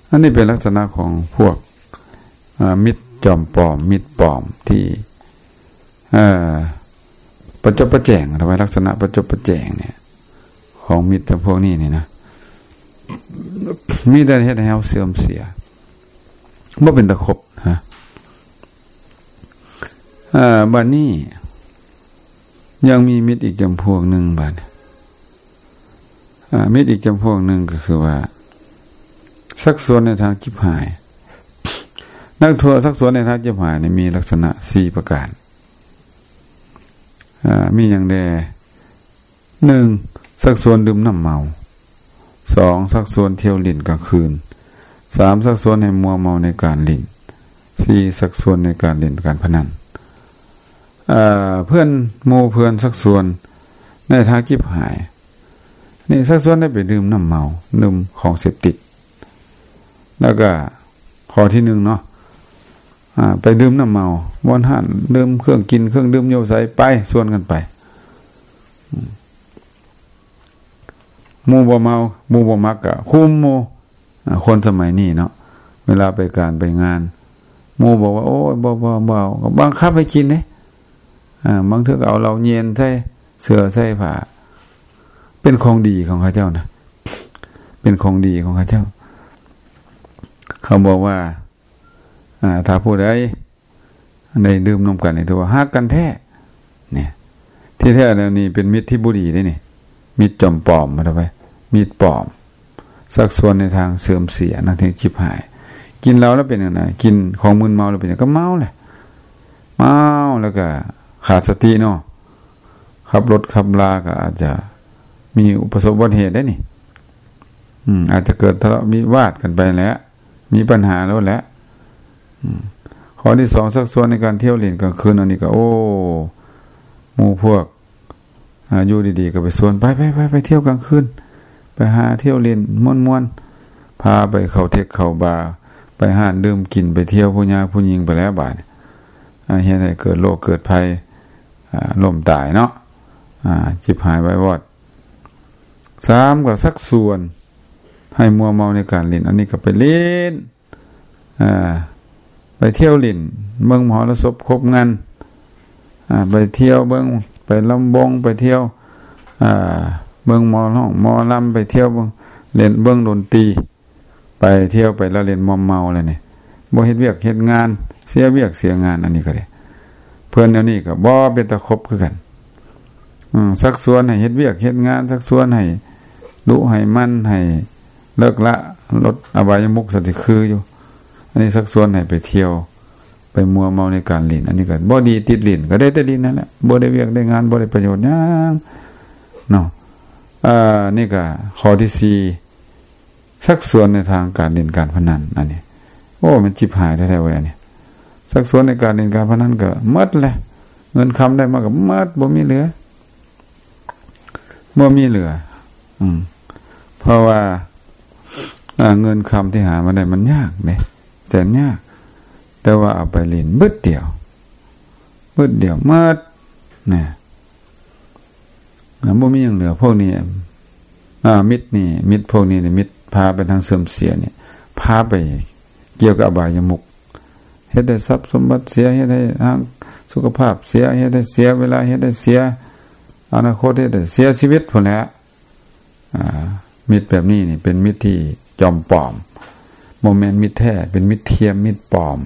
ອັນນີ້ເປັນລັກສະນະຂອງພວກ ເອີ ມິດຈອມປອມ ມິດປອມທີ່ ເອີ ປະຈົບປະແຈງ ທຳໄມລັກສະນະປະຈົບປະແຈງນີ້ ຂອງມິດຈຳພວກນີ້ນີ້ນະ ມີແຕ່ເຮັດໃຫ້ເຮົາເສື່ອມເສຍ ບໍ່ເປັນຕາຄົບນະ. ເອີ ບັດນີ້ຍັງມີມິດອີກຈຳພວກໜຶ່ງ ບັດນີ້ ອາ ມິດອີກຈຳພວກໜຶ່ງກໍຄືວ່າ ຊັກຊວນໃນທາງຈິບຫາຍ. ນັກໂທດຊັກຊວນໃນທາງຈິບຫາຍນີ້ມີລັກສະນະສີ່ປະການ ອາ ມີຫຍັງແດ່? ໜຶ່ງ ຊັກຊວນດື່ມນ້ຳເມົາ, ສອງ ຊັກຊວນທ່ຽວຫຼິ້ນກາງຄືນ, ສາມ ຊັກຊວນໃຫ້ມົວເມົາໃນການຫຼິ້ນ, ສີ່ ຊັກຊວນໃນການຫຼິ້ນການພະນັນ. ເອີ ເພື່ອນ ໝູ່ເພື່ອນຊັກຊວນໃນທາງຈິບຫາຍນີ້ ຊັກຊວນໃຫ້ໄປດື່ມນ້ຳເມົາ ດື່ມຂອງເສບຕິດ. ແລ້ວກໍຂໍ້ທີໜຶ່ງເນາະ ອາ ໄປດື່ມນ້ຳເມົາ ບ່ອນຮ້ານດື່ມເຄື່ອງກິນເຄື່ອງດື່ມຢູ່ໃສ ໄປ ຊວນກັນໄປ. ອືມ ໝູ່ບໍ່ເມົາ ໝູ່ບໍ່ມັກກະຄຸມໝູ່. ອາ ຄົນສະໄໝນີ້ເນາະ ເວລາໄປການໄປງານ ໝູ່ບອກວ່າ ໂອ້ຍ ບໍ່ ບໍ່ ບໍ່ເອົາ ກໍບັງຄັບໃຫ້ກິນເດ້. ອາ ບາງເທື່ອກໍເອົາເຫຼົ້າເຢັນໃສ່ເສື້ອໃສ່ຜ້າ ເປັນຂອງດີຂອງເຂົາເຈົ້ານະ ເປັນຂອງດີຂອງເຂົາເຈົ້າ. ເຂົາບອກວ່າ ອາ ຖ້າຜູ້ໃດໄດ້ດື່ມນຳກັນນີ້ ຖືວ່າຮັກກັນແທ້. ນີ້ ທີ່ແທ້ແລ້ວນີ້ເປັນມິດທີ່ບໍ່ດີເດ້ນີ້ ມິດຈອມປອມ ເອົາໄປ ມິດປອມ ຊັກຊວນໃນທາງເສື່ອມເສຍ ໃນທາງຈິບຫາຍ. ກິນເຫຼົ້າແລ້ວເປັນຫຍັງນະ? ກິນຂອງມຶນເມົາແລ້ວເປັນຫຍັງ? ກໍເມົາແຫຼະ ເມົາແລ້ວກໍຂາດສະຕິເນາະ ຂັບລົດຂັບລາກໍອາດຈະມີປະສົບອຸບັດຕິເຫດໄດ້ນີ້. ອືມ ອາດຈະເກີດທະເລາະວິວາດກັນໄປແຫຼະ ມີບັນຫາໂລດແຫຼະ. ອືມ ຂໍ້ທີສອງ ຊັກຊວນໃນການທ່ຽວຫຼິ້ນກາງຄືນ. ອັນນີ້ກໍ ໂອ້ ໝູ່ພວກ ອາ ຢູ່ດີໆກໍໄປຊວນ ໄປໆໆ ໄປທ່ຽວກາງຄືນ ໄປຫາທ່ຽວຫຼິ້ນມ່ວນໆ ພາໄປເຂົ້າເທັກເຂົ້າບາ ໄປຮ້ານດື່ມກິນ ໄປທ່ຽວຜູ້ຍາຜູ້ຍິງໄປແລ້ວບາດນີ້. ອ່າ ເຮັດໃຫ້ເກີດໂລກເກີດໄພ ອ່າ ລົ້ມຕາຍເນາະ ອ່າ ຈິບຫາຍວາຍວອດ. ສາມ ກໍຊັກຊວນໃຫ້ມົວເມົາໃນການຫຼິ້ນ ອັນນີ້ກໍໄປຫຼິ້ນ ອ່າ ໄປທ່ຽວຫຼິ້ນ ເບິ່ງມະຫອລະສົບຄົບງັນ ອ່າ ໄປທ່ຽວເບິ່ງ ໄປລຳວົງ ໄປທ່ຽວ ອ່າ ເບິ່ງໝໍຮ້ອງໝໍລຳ ໄປທ່ຽວເບິ່ງ ຫຼິ້ນເບິ່ງດົນຕີ ໄປທ່ຽວໄປລະເລ່ນມົວເມົາແລ້ວນີ້ ບໍ່ເຮັດວຽກເຮັດງານ ເສຍວຽກເສຍງານ ອັນນີ້ກໍໄດ້ ເພິ່ນແນວນີ້ກໍບໍ່ເປັນຕາຄົບຄືກັນ. ອືມ ຊັກຊວນໃຫ້ເຮັດວຽກເຮັດງານ ຊັກຊວນໃຫ້ດຸໃຫ້ໝັ່ນ ໃຫ້ເລີກລະລົດອະບາຍະມຸກ ສັນຕິຄືຢູ່. ອັນນີ້ຊັກຊວນໃຫ້ໄປທ່ຽວ ໄປມົວເມົາໃນການຫຼິ້ນ ອັນນີ້ກໍບໍ່ດີ ຕິດຫຼິ້ນກໍໄດ້ແຕ່ຫຼິ້ນນັ້ນແຫຼະ ບໍ່ໄດ້ວຽກໄດ້ງານ ບໍ່ໄດ້ປະໂຫຍດຫຍັງເນາະ. ອ່າ ນີ້ກໍຂໍ້ທີສີ່ ຊັກຊວນໃນທາງການຫຼິ້ນການພະນັນ ອັນນີ້ ໂອ້ ມັນຈິບຫາຍແທ້ໆເວີຍ ອັນນີ້ ຊັກຊວນໃນການຫຼິ້ນການພະນັນກໍໝົດແຫຼະ ເງິນຄຳໄດ້ມາກໍໝົດ ບໍ່ມີເຫຼືອ ບໍ່ມີເຫຼືອ. ອືມ ເພາະວ່າ ອ່າ ເງິນຄຳທີ່ຫາມາໄດ້ມັນຍາກເດ້ ແສນຍາກ ແຕ່ວ່າເອົາໄປຫຼິ້ນບຶດດຽວ ບຶດດຽວໝົດນະ ບໍ່ມີຫຍັງເຫຼືອ. ພວກນີ້ ອ່າ ມິດນີ້ ມິດພວກນີ້ນີ້ ມິດພາໄປທາງເສື່ອມເສຍນີ້ ພາໄປກ່ຽວກັບອະບາຍະມຸກ ເຮັດໃຫ້ຊັບສົມບັດເສຍ ເຮັດໃຫ້ທາງສຸຂະພາບເສຍ ເຮັດໃຫ້ເສຍເວລາ ເຮັດໃຫ້ເສຍອະນາຄົດ ເຮັດໃຫ້ເສຍຊີວິດພຸ້ນແຫຼະ. ອ່າ ມິດແບບນີ້ນີ້ເປັນມິດທີ່ຈອມປອມ ບໍ່ແມ່ນມິດແທ້ ເປັນມິດທຽມ ມິດປອມ.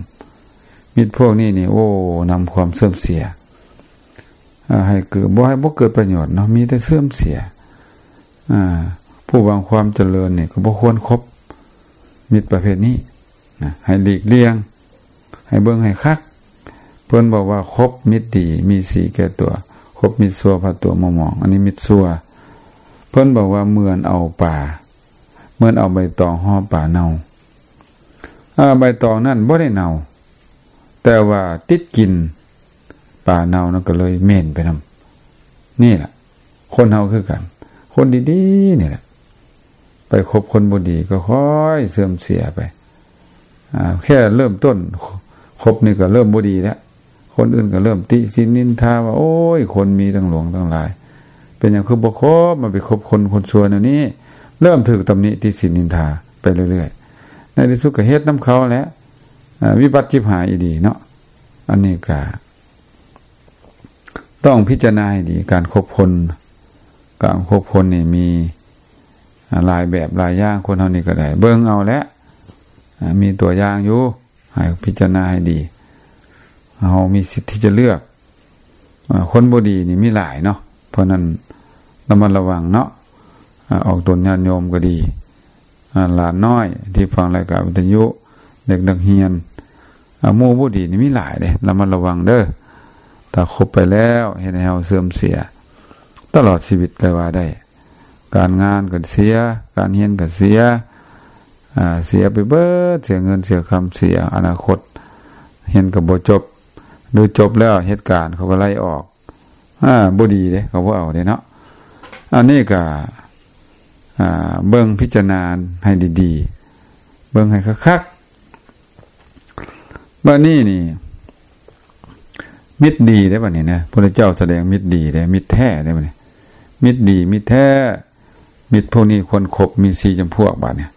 ມິດພວກນີ້ນີ້ ໂອ້ ນຳຄວາມເສື່ອມເສຍ ອ່າ ໃຫ້ເກີດ ບໍ່ໃຫ້ ບໍ່ເກີດປະໂຫຍດເນາະ ມີແຕ່ເສື່ອມເສຍ. ອ່າ ຜູ້ຫວັງຄວາມຈະເລີນນີ້ກໍບໍ່ຄວນຄົບມິດປະເພດນີ້ນະ ໃຫ້ຫຼີກລ່ຽງ ໃຫ້ເບິ່ງໃຫ້ຄັກ. ເພິ່ນບອກວ່າຄົບມິດດີມີສີແກ່ຕົວ ຄົບມິດຊົ່ວພາຕົວມົວໝອງ ອັນນີ້ມິດຊົ່ວ. ເພິ່ນບອກວ່າເໝືອນເອົາປາ ເໝືອນເອົາໃບຕອງຫໍ່ປາເນົ່າ. ອ່າ ໃບຕອງນັ້ນບໍ່ໄດ້ເນົ່າ ແຕ່ວ່າຕິດກິ່ນປາເນົ່ານັ້ນກໍເລີຍເໝັນໄປນຳ. ນີ້ລະ ຄົນເຮົາຄືກັນ ຄົນດີໆນີ້ແຫຼະ ໄປຄົບຄົນບໍ່ດີກໍຄ່ອຍເສື່ອມເສຍໄປ. ອ່າ ແຄ່ເລີ່ມຕົ້ນຄົບນີ້ກໍເລີ່ມບໍ່ດີແລ້ວ ຄົນອື່ນກໍເລີ່ມຕິສິນນິນທາວ່າ ໂອ້ຍ ຄົນມີຕັ້ງຫຼວງຕັ້ງຫຼາຍ ເປັນຫຍັງຄືບໍ່ຄົບ ມາໄປຄົບຄົນ ຄົນຊົ່ວແນວນີ້. ເລີ່ມຖືກຕຳໜິຕິສິນນິນທາໄປເລື້ອຍໆ ໃນທີ່ສຸດກໍເຮັດນຳເຂົາແຫຼະ. ອ່າ ວິບັດຈິບຫາຍອີ່ຫຼີເນາະ. ອັນນີ້ກໍ ຕ້ອງພິຈາລະນາໃຫ້ດີ ການຄົບຄົນ ການຄົບຄົນນີ້ມີ ອ່າ ຫຼາຍແບບຫຼາຍຢ່າງ ຄົນເຮົານີ້ກໍໄດ້ເບິ່ງເອົາແຫຼະ ອ່າ ມີຕົວຢ່າງຢູ່ ໃຫ້ພິຈາລະນາໃຫ້ດີ. ເຮົາມີສິດທີ່ຈະເລືອກ ອ່າ ຄົນບໍ່ດີນີ້ມີຫຼາຍເນາະ ເພາະນັ້ນລະມັດລະວັງເນາະ. ອ່າ ອອກຕົນຍາດໂຍມກໍດີ ອ່າ ຫຼານນ້ອຍທີ່ຟັງລາຍການວິທະຍຸ ເດັກນັກຮຽນ ອ່າ ໝູ່ບໍ່ດີນີ້ມີຫຼາຍເດ້ ລະມັດລະວັງເດີ້. ຖ້າຄົບໄປແລ້ວເຮັດໃຫ້ເຮົາເສື່ອມເສຍຕະຫຼອດຊີວິດກໍວ່າໄດ້. ການງານກໍເສຍ ການຮຽນກໍເສຍ ອ່າ ເສຍໄປເບິດ ເສຍເງິນເສຍຄຳ ເສຍອະນາຄົດ ຮຽນກໍບໍ່ຈົບ ຫຼືຈົບແລ້ວເຮັດການເຂົາກໍໄລ່ອອກ. ອ່າ ບໍ່ດີເດ້ ເຂົາບໍ່ເອົາເດ້ເນາະ. ອັນນີ້ກໍ ອ່າ ເບິ່ງພິຈາລະນາໃຫ້ດີໆ ເບິ່ງໃຫ້ຄັກໆ. ບັດນີ້ນີ້ ມິດດີເດ້ ບັດນີ້ນະ ພະພຸດທະເຈົ້າສະແດງມິດດີເດ້ ມິດແທ້ເດ້ ບັດນີ້ ມິດດີ ມິດແທ້. ມິດພວກນີ້ຄວນຄົບມີສີ່ຈຳພວກ ບາດນີ້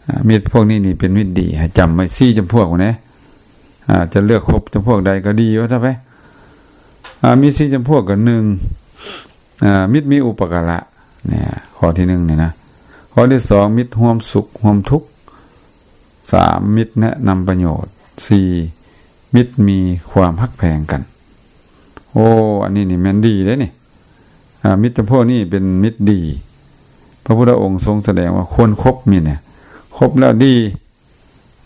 ອ່າ ມິດພວກນີ້ນີ້ເປັນມິດດີ ໃຫ້ຈຳໄວ້ສີ່ຈຳພວກພຸ້ນເດ້. ອ່າ ຈະເລືອກຄົບຈຳພວກໃດກໍດີວ່າຊະໄປ. ອ່າ ມີສີ່ຈຳພວກກໍ ໜຶ່ງ ອ່າ ມິດມີອຸປະກາລະ ນີ້ ຂໍ້ທີໜຶ່ງນີ້ນະ. ຂໍ້ທີສອງ ມິດຮ່ວມສຸກຮ່ວມທຸກ. ສາມ ມິດແນະນຳປະໂຫຍດ. ສີ່ ມິດມີຄວາມຮັກແພງກັນ. ໂອ້ ອັນນີ້ນີ້ແມ່ນດີເດ້ນີ້. ອ່າ ມິດຈຳພວກນີ້ເປັນມິດດີ ພະພຸດທະອົງຊົງສະແດງວ່າຄວນຄົບມິດນີ້ ຄົບແລ້ວດີ.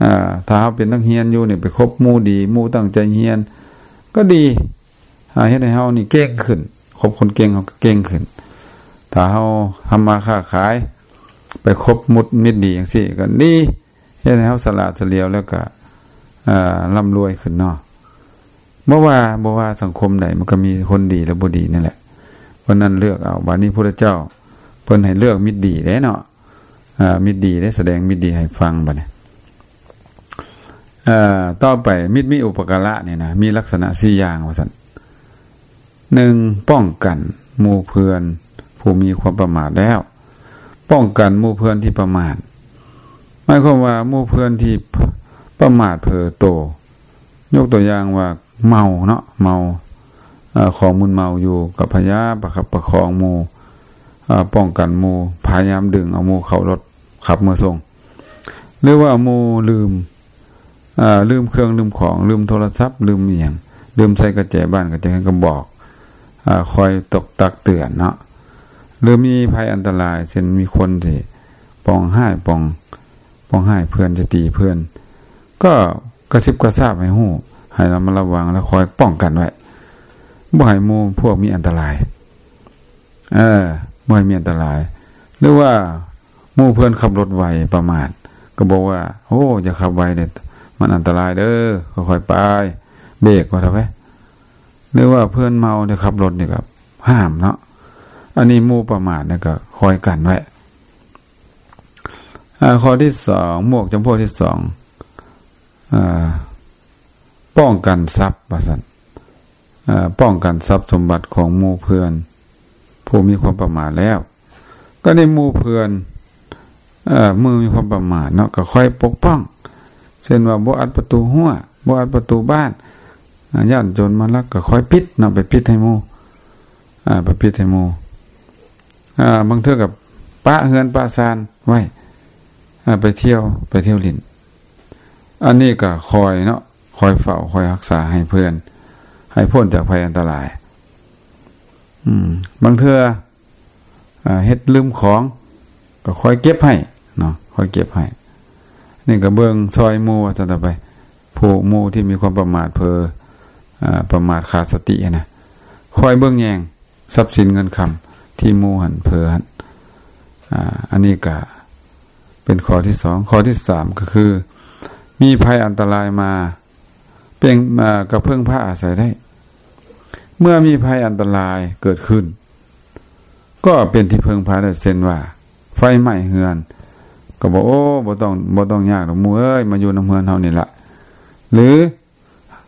ອ່າ ຖ້າເຮົາເປັນນັກຮຽນຢູ່ນີ້ ໄປຄົບໝູ່ດີ ໝູ່ຕັ້ງໃຈຮຽນກໍດີ ອ່າ ເຮັດໃຫ້ເຮົານີ້ເກັ່ງຂຶ້ນ ຄົບຄົນເກັ່ງເຮົາກໍເກັ່ງຂຶ້ນ. ຖ້າເຮົາທຳມາຄ້າຂາຍ ໄປຄົບມິດດີຈັ່ງຊີ້ກໍດີ ເຮັດໃຫ້ເຮົາສະຫຼາດສະຫຼຽວ ແລ້ວກໍ ອ່າ ລ່ຳລວຍຂຶ້ນເນາະ. ບໍ່ວ່າ ບໍ່ວ່າສັງຄົມໃດ ມັນກໍມີຄົນດີ ແລະ ບໍ່ດີນັ້ນແຫຼະ. ເພາະນັ້ນເລືອກເອົາ. ບາດນີ້ພຸດທະເຈົ້າເພິ່ນໃຫ້ເລືອກມິດດີເດ້ເນາະ. ອ່າ ມິດດີເດ້ ສະແດງມິດດີໃຫ້ຟັງ. ບາດນີ້ ເອີ ຕໍ່ໄປ ມິດມີອຸປະກາລະນີ້ນະ ມີລັກສະນະສີ່ຢ່າງວ່າຊັ້ນ. ໜຶ່ງ ປ້ອງກັນໝູ່ເພື່ອນຜູ້ມີຄວາມປະໝາດແລ້ວ ປ້ອງກັນໝູ່ເພື່ອນທີ່ປະໝາດ ໝາຍຄວາມວ່າໝູ່ເພື່ອນທີ່ປະໝາດເຜີໂຕ ຍົກຕົວຢ່າງວ່າເມົາເນາະ ເມົາ ເອີ ຂອງມຶນເມົາຢູ່ ກໍພະຍາຍາມປະຄັບປະຄອງໝູ່ ເອີ ປ້ອງກັນໝູ່ ພະຍາຍາມດຶງເອົາໝູ່ເຂົ້າລົດຂັບເມືອສົ່ງ ຫຼືວ່າໝູ່ລືມ ເອີ ລືມເຄື່ອງລືມຂອງ ລືມໂທລະສັບ ລືມອີ່ຫຍັງ ລືມໃສ່ກະແຈບ້ານກະແຈເຮືອນ ກໍບອກ ເອີ ຄອຍຕົກຕັກເຕືອນເນາະ ຫຼືມີໄພອັນຕະລາຍ ເຊັ່ນມີຄົນທີ່ປອງຮ້າຍ ປອງ ປອງຮ້າຍເພື່ອນ ຈະຕີເພື່ອນ ກໍກະຊິບກະຊາບໃຫ້ຮູ້ ໃຫ້ລະມັດລະວັງ ແລະຄອຍປ້ອງກັນໄວ້ ບໍ່ໃຫ້ໝູ່ພວກມີອັນຕະລາຍ ເອີ ບໍ່ໃຫ້ມີອັນຕະລາຍ ຫຼືວ່າໝູ່ເພື່ອນຂັບລົດໄວປະໝາດ ກໍບອກວ່າ ໂອ້ ຢ່າຂັບໄວເດ້ ມັນອັນຕະລາຍເດີ ຄ່ອຍໆໄປ ເບກວ່າເຖາະເວີຍ ຫຼືວ່າເພື່ອນເມົາໄດ້ຂັບລົດນີ້ກໍຫ້າມເນາະ ອັນນີ້ໝູ່ປະໝາດນີ້ກໍຄອຍກັນໄວ້. ອາ ຂໍ້ທີສອງ ໝວກຈຳພວກທີສອງ ອາ ປ້ອງກັນຊັບວ່າຊັ້ນ ເອີ ປ້ອງກັນຊັບສົມບັດຂອງໝູ່ເພື່ອນຜູ້ມີຄວາມປະໝາດແລ້ວ ກໍໃນໝູ່ເພື່ອນ ເອີ ມື້ມີຄວາມປະໝາດເນາະ ກໍຄອຍປົກປ້ອງ ເຊັ່ນວ່າບໍ່ອັດປະຕູຮົ້ວ ບໍ່ອັດປະຕູບ້ານ ອາ ຢ້ານໂຈນມາລັກ ກໍຄອຍປິດເນາະ ໄປປິດໃຫ້ໝູ່ ອາ ໄປປິດໃຫ້ໝູ່ ອາ ບາງເທື່ອກໍປະເຮືອນປະຊານໄວ້ ອາ ໄປທ່ຽວ ໄປທ່ຽວຫຼິ້ນ ອັນນີ້ກໍຄອຍເນາະ ຄອຍເຝົ້າ ຄອຍຮັກສາໃຫ້ເພື່ອນ ໃຫ້ພົ້ນຈາກໄພອັນຕະລາຍ ອືມ ບາງເທື່ອ ອາ ເຮັດລືມຂອງ ກໍຄອຍເກັບໃຫ້ເນາະ ຄອຍເກັບໃຫ້ ນີ້ກໍເບິ່ງຊ່ອຍໝູ່ວ່າຊັ້ນເຖາະໄປ ຜູ້ໝູ່ທີ່ມີຄວາມປະໝາດເຜີ ອາ ປະໝາດຂາດສະຕິຫັ້ນນະ ຄອຍເບິ່ງແຍງ ຊັບສິນເງິນຄຳທີ່ໝູ່ຫັ້ນເຜີຫັ້ນ ອາ ອັນນີ້ກະເປັນຂໍ້ທີສອງ. ຂໍ້ທີສາມກໍຄື ມີໄພອັນຕະລາຍມາ ເປັນ ອາ ກະເພິ່ງພາອາໄສໄດ້. ເມື່ອມີໄພອັນຕະລາຍເກີດຂຶ້ນ ກໍເປັນທີ່ເພິ່ງພາໄດ້ ເຊັ່ນວ່າ ໄຟໄໝ້ເຮືອນ ກໍບອກ ໂອ້ ບໍ່ຕ້ອງ ບໍ່ຕ້ອງຍາກດອກໝູ່ເອີຍ ມາຢູ່ນຳເຮືອນເຮົານີ້ລະ ຫຼື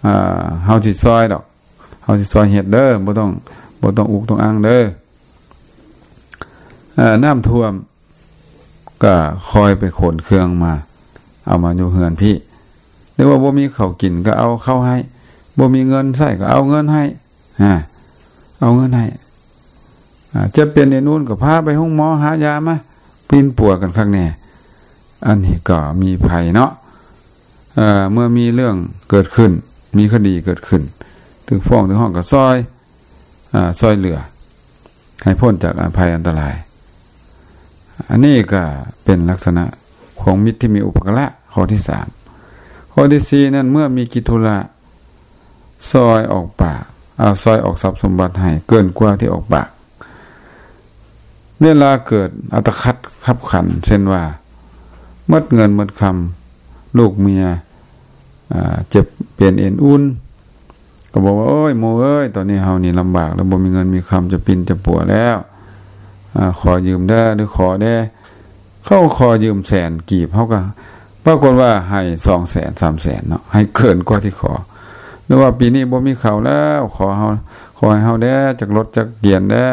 ອາ ເຮົາຊິຊ່ອຍດອກ ເຮົາຊິຊ່ອຍເຮັດເດີ ບໍ່ຕ້ອງ ບໍ່ຕ້ອງອຸກຕ້ອງອັ່ງເດີ. ເອີ ນ້ຳຖ້ວມກໍຄ່ອຍໄປຂົນເຄື່ອງມາ ເອົາມາຢູ່ເຮືອນພີ້ ຫຼືວ່າບໍ່ມີເຂົ້າກິນກໍເອົາເຂົ້າໃຫ້ ບໍ່ມີເງິນໃຊ້ກໍເອົາເງິນໃຫ້ ອາ ເອົາເງິນໃຫ້ ອາ ເຈັບເປັນເອັນອຸ່ນກໍພາໄປໂຮງໝໍ ຫາຢາມາ ປິ່ນປົວກັນຄັກແນ່. ອັນນີ້ກໍມີໄພເນາະ ເອີ ເມື່ອມີເລື່ອງເກີດຂຶ້ນ ມີຄະດີເກີດຂຶ້ນ ຖືກຟ້ອງຖືກຮ້ອງກໍຊ່ອຍ ອາ ຊ່ອຍເຫຼືອໃຫ້ພົ້ນຈາກອັນໄພອັນຕະລາຍ. ອັນນີ້ກໍເປັນລັກສະນະຂອງມິດທີ່ມີອຸປະກາລະ ຂໍ້ທີສາມ. ຂໍ້ທີສີ່ນັ້ນ ເມື່ອມີກິດທຸລະ ຊ່ອຍອອກປາກ ເອົາ ຊ່ອຍອອກຊັບສົມບັດໃຫ້ເກີນກວ່າທີ່ອອກປາກ. ເວລາເກີດອັດຕະຂັດຂັບຂັນ ເຊັ່ນວ່າ ໝົດເງິນໝົດຄຳ ລູກເມຍ ອາ ເຈັບເປັນເອັນອຸ່ນ ກໍບອກວ່າ ໂອ້ຍ ໝູ່ເອີຍ ຕອນນີ້ເຮົານີ້ລຳບາກແລ້ວ ບໍ່ມີເງິນມີຄຳ ຈະປິ່ນຈະປົວແລ້ວ ອາ ຂໍຢືມແດ່ ຫຼືຂໍແດ່. ເຂົາຂໍຢືມແສນກີບ ເຮົາກໍປາກົດວ່າໃຫ້ສອງແສນ ສາມແສນເນາະ ໃຫ້ເກີນກວ່າທີ່ຂໍ ຫຼືວ່າປີນີ້ບໍ່ມີເຂົ້າແລ້ວ ຂໍເຮົາ ຂໍໃຫ້ເຮົາແດ່ ຈັກລົດຈັກກຽນແດ່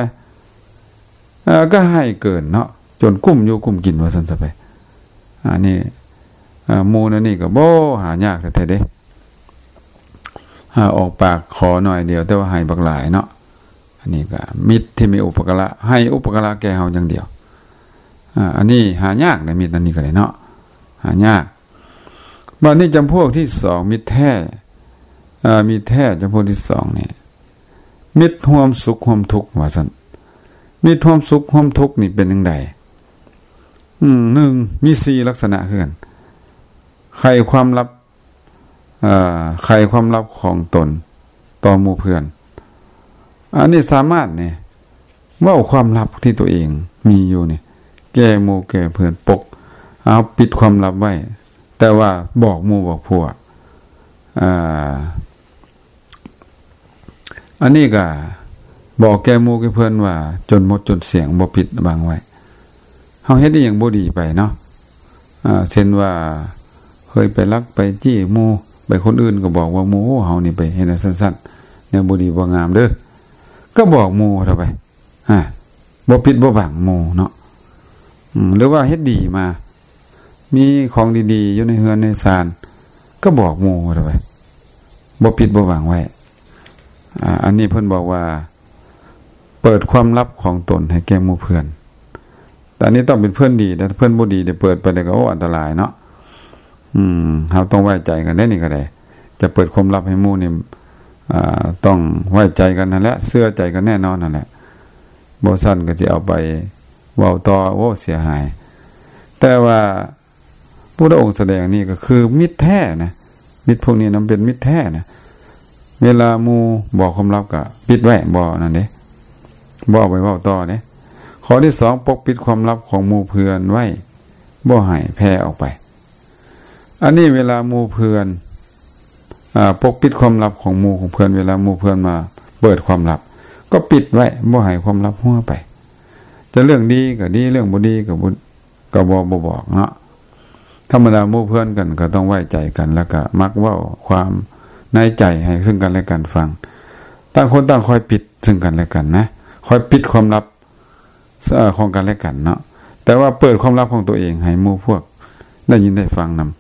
ເອີ ກໍໃຫ້ເກີນເນາະ ຈົນກຸ້ມຢູ່ກຸ້ມກິນວ່າຊັ້ນຊະໄປ. ອັນນີ້ ເອີ ໝູ່ແນວນີ້ກໍບໍ່ຫາຍາກແທ້ໆເດ້ ອາ ອອກປາກຂໍໜ້ອຍດຽວ ແຕ່ວ່າໃຫ້ບັກຫຼາຍເນາະ. ອັນນີ້ກໍມິດທີ່ມີອຸປະກາລະ ໃຫ້ອຸປະກາລະແກ່ເຮົາຢ່າງດຽວ. ອາ ອັນນີ້ຫາຍາກໃນມິດອັນນີ້ກໍໄດ້ເນາະ ຫາຍາກ. ບາດນີ້ຈຳພວກທີສອງ ມິດແທ້ ເອີ ມິດແທ້ຈຳພວກທີສອງນີ້ ມິດຮ່ວມສຸກຮ່ວມທຸກວ່າຊັ້ນ. ມິດຮ່ວມສຸກຮ່ວມທຸກນີ້ເປັນຈັ່ງໃດ? ອືມ ໜຶ່ງ ມີສີ່ລັກສະນະຄືກັນ ໄຂຄວາມລັບ ເອີ ໄຂຄວາມລັບຂອງຕົນຕໍ່ໝູ່ເພື່ອນ. ອັນນີ້ສາມາດນີ້ ເວົ້າຄວາມລັບທີ່ຕົວເອງມີຢູ່ນີ້ ແກ່ໝູ່ແກ່ເພື່ອນ ປົກ ເອົາ ປິດຄວາມລັບໄວ້ ແຕ່ວ່າບອກໝູ່ບອກພວກ ເອີ ອັນນີ້ກໍບອກແກ່ໝູ່ແກ່ເພື່ອນວ່າ ຈົນໝົດຈົນສຽງ ບໍ່ປິດບັງໄວ້. ເຮົາເຮັດອີ່ຫຍັງບໍ່ດີໄປເນາະ ເຊັ່ນວ່າ ເຄີຍໄປລັກໄປຈີ້ໝູ່ ໄປຄົນອື່ນກໍບອກວ່າໝູ່ ໂອ້ ເຮົານີ້ໄປເຮັດອັນຊັ້ນໆ ແນວບໍ່ດີບໍ່ງາມເດີ້ ກໍບອກໝູ່ເທົ່າໄປ ຮະ ບໍ່ປິດບໍ່ບັງໝູ່ເນາະ ອືມ ຫຼືວ່າເຮັດດີມາ ມີຂອງດີໆຢູ່ໃນເຮືອນໃນຊານ ກໍບອກໝູ່ເທົ່າໄປ ບໍ່ປິດບໍ່ບັງໄວ້ ອາ ອັນນີ້ເພິ່ນບອກວ່າ ເປີດຄວາມລັບຂອງຕົນໃຫ້ແກ່ໝູ່ເພື່ອນ ແຕ່ອັນນີ້ຕ້ອງເປັນເພື່ອນດີ ແຕ່ເພື່ອນບໍ່ດີໄດ້ເປີດໄປແລ້ວກໍ ໂອ້ ອັນຕະລາຍເນາະ ອືມ ເຮົາຕ້ອງໄວ້ໃຈກັນເດ້ ນີ້ກໍໄດ້ ຈະເປີດຄວາມລັບໃຫ້ໝູ່ນີ້ ອາ ຕ້ອງໄວ້ໃຈກັນຫັ້ນແຫຼະ ເຊື່ອໃຈກັນແນ່ນອນຫັ້ນແຫຼະ ບໍ່ຊັ້ນກໍຊິເອົາໄປເວົ້າຕໍ່ ໂອ້ ເສຍຫາຍ ແຕ່ວ່າ ພຸດທະອົງສະແດງນີ້ກໍຄືມິດແທ້ນະ ມິດພວກນີ້ນຳເປັນມິດແທ້ນະ ເວລາໝູ່ບອກຄວາມລັບກໍປິດໄວ້ ບໍ່ນັ້ນເດ້ ບໍ່ເອົາໄປເວົ້າຕໍ່ເດ້. ຂໍ້ທີສອງ ປົກປິດຄວາມລັບຂອງໝູ່ເພື່ອນໄວ້ ບໍ່ໃຫ້ແຜ່ອອກໄປ. ອັນນີ້ເວລາໝູ່ເພື່ອນ ອາ ປົກປິດຄວາມລັບຂອງໝູ່ຂອງເພື່ອນ ເວລາໝູ່ເພື່ອນມາເປີດຄວາມລັບ ກໍປິດໄວ້ ບໍ່ໃຫ້ຄວາມລັບຮົ່ວໄປ. ຈະເລື່ອງດີກໍດີ ເລື່ອງບໍ່ດີກໍບໍ່ ກໍບໍ່ ບໍ່ບອກເນາະ. ທຳມະດາໝູ່ເພື່ອນກັນກໍຕ້ອງໄວ້ໃຈກັນ ແລ້ວກໍມັກເວົ້າຄວາມໃນໃຈໃຫ້ເຊິ່ງກັນແລະກັນຟັງ. ຕ່າງຄົນຕ່າງຄອຍປິດເຊິ່ງກັນແລະກັນນະ ຄອຍປິດຄວາມລັບ ເອີ ຂອງກັນແລະກັນເນາະ. ແຕ່ວ່າເປີດຄວາມລັບຂອງຕົວເອງໃຫ້ໝູ່ພວກໄດ້ຍິນໄດ້ຟັງນຳ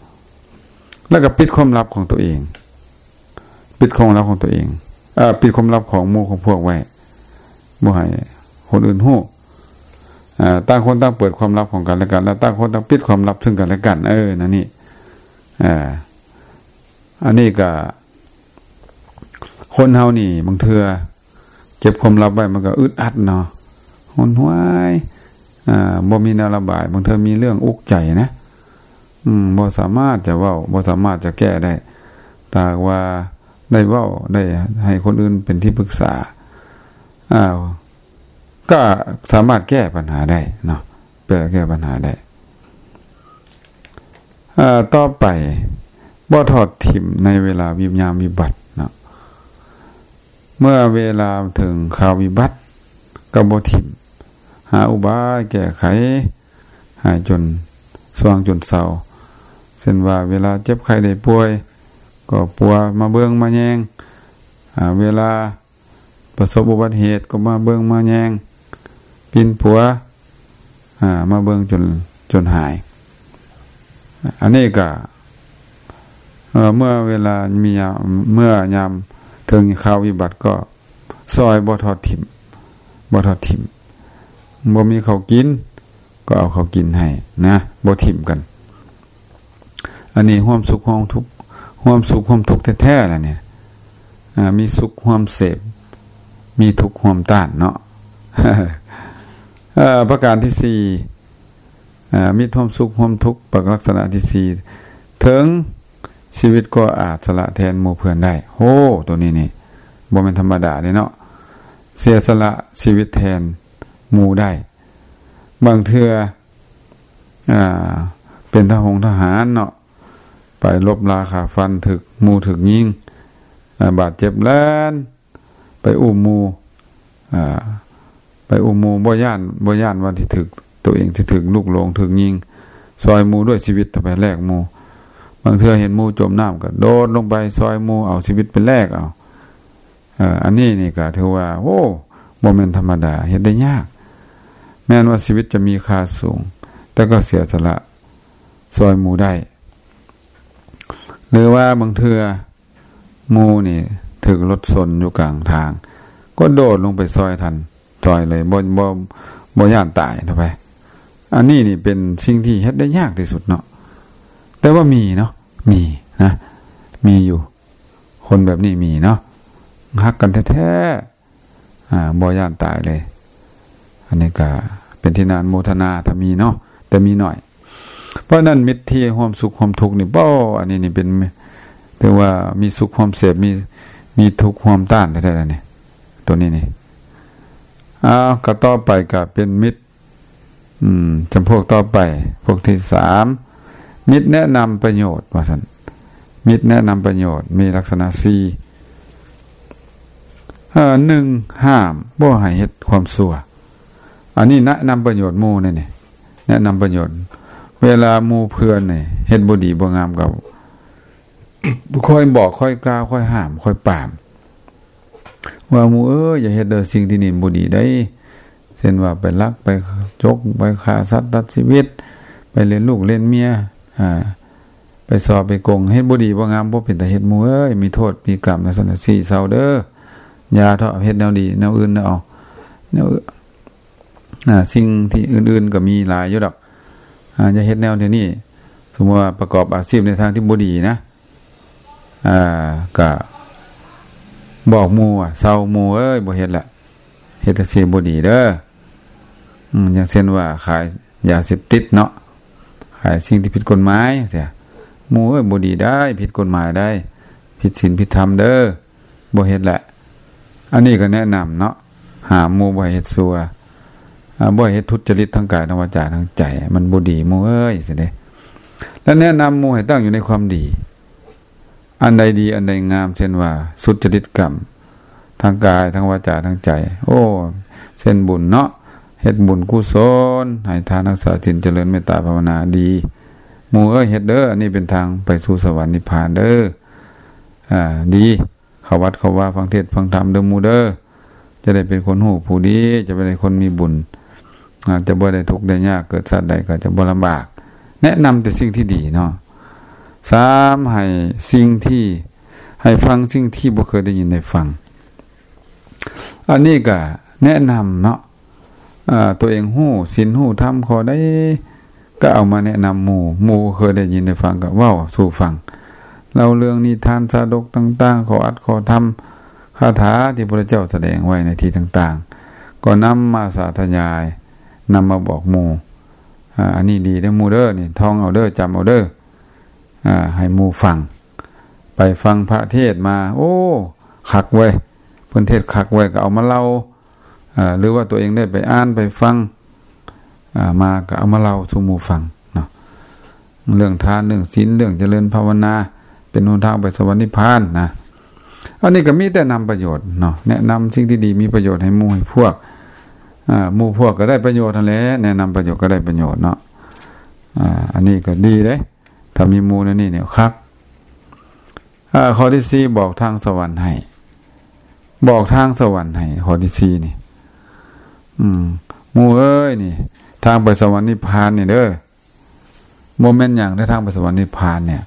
ແລ້ວກໍປິດຄວາມລັບຂອງຕົວເອງ ປິດຄວາມລັບຂອງຕົວເອງ ເອີ ປິດຄວາມລັບຂອງໝູ່ຂອງພວກໄວ້ ບໍ່ໃຫ້ຄົນອື່ນຮູ້. ເອີ ຕ່າງຄົນຕ່າງເປີດຄວາມລັບຂອງກັນແລະກັນ ແລະ ຕ່າງຄົນຕ່າງປິດຄວາມລັບເຊິ່ງກັນແລະກັນ. ເອີ ນັ້ນນີ້ ເອີ ອັນນີ້ກໍ ຄົນເຮົານີ້ບາງເທື່ອເກັບຄວາມລັບໄວ້ ມັນກໍອຶດອັດເນາະ ຫົນຫວາຍ ອາ ບໍ່ມີແນວລະບາຍ. ບາງເທື່ອມີເລື່ອງອຸກໃຈນະ ອືມ ບໍ່ສາມາດຈະເວົ້າ ບໍ່ສາມາດຈະແກ້ໄດ້. ຖ້າຫາກວ່າໄດ້ເວົ້າ ໄດ້ໃຫ້ຄົນອື່ນເປັນທີ່ປຶກສາ ອາ ກໍສາມາດແກ້ບັນຫາໄດ້ເນາະ ແກ້ ແກ້ບັນຫາໄດ້. ເອີ ຕໍ່ໄປ ບໍ່ທອດຖິ້ມໃນເວລາວິ ຍາມວິບັດເນາະ. ເມື່ອເວລາເຖິງຄາວວິບັດ ກໍບໍ່ຖິ້ມ ຫາອຸບາຍແກ້ໄຂໃຫ້ຈົນຊ່ວງຈົນເຊົາ. ເຊັ່ນວ່າ ເວລາເຈັບໄຂ້ໄດ້ປ່ວຍ ກໍປົວມາເບິ່ງມາແຍງ ອາ ເວລາ ປະສົບອຸບັດເຫດກໍມາເບິ່ງມາແຍງ ປິ່ນປົວ ອາ ມາເບິ່ງຈົນ ຈົນຫາຍ. ອັນນີ້ກະ ເອີ ເມື່ອເວລາມີຍາມ ເມື່ອຍາມເຖິງຄາວວິບັດກໍຊ່ອຍບໍ່ທອດຖິ້ມ ບໍ່ທອດຖິ້ມ. ບໍ່ມີເຂົ້າກິນ ກໍເອົາເຂົ້າກິນໃຫ້ນະ ບໍ່ຖິ້ມກັນ. ອັນນີ້ຮ່ວມສຸກຮ່ວມທຸກ ຮ່ວມສຸກຮ່ວມທຸກແທ້ໆລະນີ້ ອາ ມີສຸກຮ່ວມເສບ ມີທຸກຮ່ວມຕ້ານເນາະ. ເອີ ປະການທີສີ່ ອາ ມິດຮ່ວມສຸກຮ່ວມທຸກ ປະ ລັກສະນະທີສີ່ ເຖິງຊີວິດກໍອາດສະຫຼະແທນໝູ່ເພື່ອນໄດ້. ໂຫ ໂຕນີ້ນີ້ບໍ່ແມ່ນທຳມະດາເດ້ເນາະ ເສຍສະຫຼະຊີວິດແທນໝູ່ໄດ້. ບາງເທື່ອ ອາ ເປັນທະຫົງທະຫານເນາະ ໄປລົບລາຂ້າຟັນ ຖືກໝູ່ຖືກຍິງ ອາ ບາດເຈັບ ແລ່ນໄປອຸ້ມໝູ່ ອາ ໄປອຸ້ມໝູ່ ບໍ່ຢ້ານ ບໍ່ຢ້ານວ່າຊິຖືກ ໂຕເອງຊິຖືກລູກຫຼົງ ຖືກຍິງ ຊ່ອຍໝູ່ດ້ວຍຊີວິດ ໄປແລກໝູ່. ບາງເທື່ອເຫັນໝູ່ຈົມນ້ຳ ກະໂດດລົງໄປຊ່ອຍໝູ່ ເອົາຊີວິດໄປແລກເອົາ. ເອີ ອັນນີ້ນີ້ກະຖືວ່າ ໂອ້ ບໍ່ແມ່ນທຳມະດາ ເຮັດໄດ້ຍາກ. ແມ່ນວ່າຊີວິດຈະມີຄ່າສູງ ແຕ່ກໍເສຍສະຫຼະຊ່ອຍໝູ່ໄດ້. ຫຼືວ່າບາງເທື່ອໝູ່ນີ້ຖືກລົດຊົນຢູ່ກາງທາງ ກໍໂດດລົງໄປຊ່ອຍທັນ ຊ່ອຍເລີຍ ບໍ່ ບໍ່ ບໍ່ຢ້ານຕາຍເທົ່າໃດ. ອັນນີ້ນີ້ເປັນສິ່ງທີ່ເຮັດໄດ້ຍາກທີ່ສຸດເນາະ ແຕ່ວ່າມີເນາະ ມີນະ ມີຢູ່. ຄົນແບບນີ້ມີເນາະ ຮັກກັນແທ້ໆ ອາ ບໍ່ຢ້ານຕາຍເລີຍ. ອັນນີ້ກະເປັນທີ່ໜ້າອະນຸໂມທະນາ ຖ້າມີເນາະ ແຕ່ມີໜ້ອຍ. ເພາະນັ້ນ ມິດທີ່ຮ່ວມສຸກຮ່ວມທຸກນີ້ ເປ້າ ອັນນີ້ນີ້ເປັນ ຖືວ່າມີສຸກຮ່ວມເສບ ມີ ມີທຸກຮ່ວມຕ້ານແທ້ໆ ນີ້ ໂຕນີ້ນີ້. ອ້າວ ກໍຕໍ່ໄປກໍເປັນມິດ ອືມ ຈຳພວກຕໍ່ໄປ ພວກທີສາມ ມິດແນະນຳປະໂຫຍດ ວ່າຊັ້ນ. ມິດແນະນຳປະໂຫຍດມີລັກສະນະສີ່ ເອີ ໜຶ່ງ ຫ້າມບໍ່ໃຫ້ເຮັດຄວາມຊົ່ວ. ອັນນີ້ແນະນຳປະໂຫຍດໝູ່ນີ້ ແນະນຳປະໂຫຍດ ເວລາໝູ່ເພື່ອນນີ້ເຮັດບໍ່ດີບໍ່ງາມກໍ ຄອຍບອກ ຄອຍກ່າວ ຄອຍຫ້າມ ຄອຍປາມ ວ່າ ໝູ່ເອີຍ ຢ່າເຮັດເດີ ສິ່ງທີ່ນີ້ບໍ່ດີໄດ໋ ເຊັ່ນວ່າໄປລັກ ໄປຈົກ ໄປຂ້າສັດຕັດຊີວິດ ໄປເລນລູກເລນເມຍ ອ່າ ໄປສໍ້ໄປໂກງ ເຮັດບໍ່ດີບໍ່ງາມ ບໍ່ເປັນຕາເຮັດ ໝູ່ເອີຍ ມີໂທດມີກຳ ຈັ່ງຊັ້ນຊີ້ເຊົາເດີ ຢ່າເທາະ ເຮັດແນວດີ ແນວອື່ນເອົາ ແນວ ອ່າ ສິ່ງທີ່ອື່ນໆກໍມີຫຼາຍຢູ່ດອກ ອ່າ ຢ່າເຮັດແນວນີ້ ສົມມຸດວ່າປະກອບອາຊີບໃນທາງທີ່ບໍ່ດີນະ ອ່າ ກະບອກໝູ່ວ່າ ເຊົາໝູ່ເອີຍ ບໍ່ເຮັດລະ ເຮັດຈັ່ງຊີ້ບໍ່ດີເດີ ອືມ ຢ່າງເຊັ່ນວ່າຂາຍຢາເສບຕິດເນາະ ຂາຍສິ່ງທີ່ຜິດກົດໝາຍຈັ່ງຊີ້ ໝູ່ເອີຍ ບໍ່ດີໄດ໋ ຜິດກົດໝາຍໄດ໋ ຜິດສິນຜິດທຳເດີ ບໍ່ເຮັດແຫຼະ ອັນນີ້ກໍແນະນຳເນາະ ຫ້າມໝູ່ບໍ່ໃຫ້ເຮັດຊົ່ວ ອ່າ ບໍ່ໃຫ້ເຮັດທຸດຈະລິດທາງກາຍ ທາງວາຈາ ທາງໃຈ ມັນບໍ່ດີໝູ່ເອີຍ ຊີ້ເດ້ ແລະ ແນະນຳໝູ່ໃຫ້ຕັ້ງຢູ່ໃນຄວາມດີ ອັນໃດດີ ອັນໃດງາມ ເຊັ່ນວ່າ ສຸດຈະລິດກຳ ທາງກາຍ ທາງວາຈາ ທາງໃຈ ໂອ້ ເຊັ່ນບຸນເນາະ ເຮັດບຸນກຸສົນ ໃຫ້ທານ ຮັກສາສິນ ຈະເລີນເມດຕາພາວະນາ ດີ ໝູ່ເອີຍ ເຮັດເດີ ອັນນີ້ເປັນທາງໄປສູ່ສະຫວັນນິບພານເດີ ອ່າ ດີ ເຂົ້າວັດເຂົ້າວາ ຟັງເທດຟັງທຳເດີໝູ່ເດີ ຈະໄດ້ເປັນຄົນຮູ້ຜູ້ດີ ຈະໄດ້ເປັນຄົນມີບຸນ ອາດຈະບໍ່ໄດ້ທຸກໄດ້ຍາກ ເກີດຊາດໃດກໍຈະບໍ່ລຳບາກ ແນະນຳແຕ່ສິ່ງທີ່ດີເນາະ ສາມ ໃຫ້ສິ່ງທີ່ ໃຫ້ຟັງສິ່ງທີ່ບໍ່ເຄີຍໄດ້ຍິນໄດ້ຟັງ ອັນນີ້ກໍແນະນຳເນາະ ອາ ຕົວເອງຮູ້ສິນຮູ້ທຳຂໍ້ໃດ ກໍເອົາມາແນະນຳໝູ່ ໝູ່ເຄີຍໄດ້ຍິນໄດ້ຟັງກໍເວົ້າສູ່ຟັງ ເລົ່າເລື່ອງນິທານຊາດົກຕ່າງໆ ຂໍ້ອັດຂໍ້ທຳ ຄາຖາທີ່ພະພຸດທະເຈົ້າສະແດງໄວ້ໃນທີ່ຕ່າງໆ ກໍນຳມາສາທະຍາຍ ນຳມາບອກໝູ່ ອາ ອັນນີ້ດີເດີໝູ່ເດີ ນີ້ທ່ອງເອົາເດີ ຈຳເອົາເດີ ອາ ໃຫ້ໝູ່ຟັງ ໄປຟັງພະເທດມາ ໂອ້ ຄັກເວີຍ ເພິ່ນເທດຄັກເວີຍ ກໍເອົາມາເລົ່າ ເອີ ຫຼືວ່າຕົວເອງໄດ້ໄປອ່ານໄປຟັງ ເອີ ມາກໍເອົາມາເລົ່າສູ່ໝູ່ຟັງເນາະ ເລື່ອງທານ ເລື່ອງສິນ ເລື່ອງຈະເລີນພາວະນາ ເປັນຫົນທາງໄປສະຫວັນນິບພານນະ ອັນນີ້ກໍມີແຕ່ນຳປະໂຫຍດເນາະ ແນະນຳສິ່ງທີ່ດີມີປະໂຫຍດໃຫ້ໝູ່ໃຫ້ພວກ ເອີ ໝູ່ພວກກໍໄດ້ປະໂຫຍດຫັ້ນແຫຼະ ແນະນຳປະໂຫຍດກໍໄດ້ປະໂຫຍດເນາະ ເອີ ອັນນີ້ກໍດີເດ້ ຖ້າມີໝູ່ແນວນີ້ນີ້ຄັກ ເອີ ຂໍ້ທີສີ່ ບອກທາງສະຫວັນໃຫ້ ບອກທາງສະຫວັນໃຫ້ ຂໍ້ທີສີ່ນີ້ ອືມ ໝູ່ເອີຍ ນີ້ ທາງໄປສະຫວັນນິບພານນີ້ເດີ ບໍ່ແມ່ນຫຍັງເດີ ທາງໄປສະຫວັນນິບພານນີ້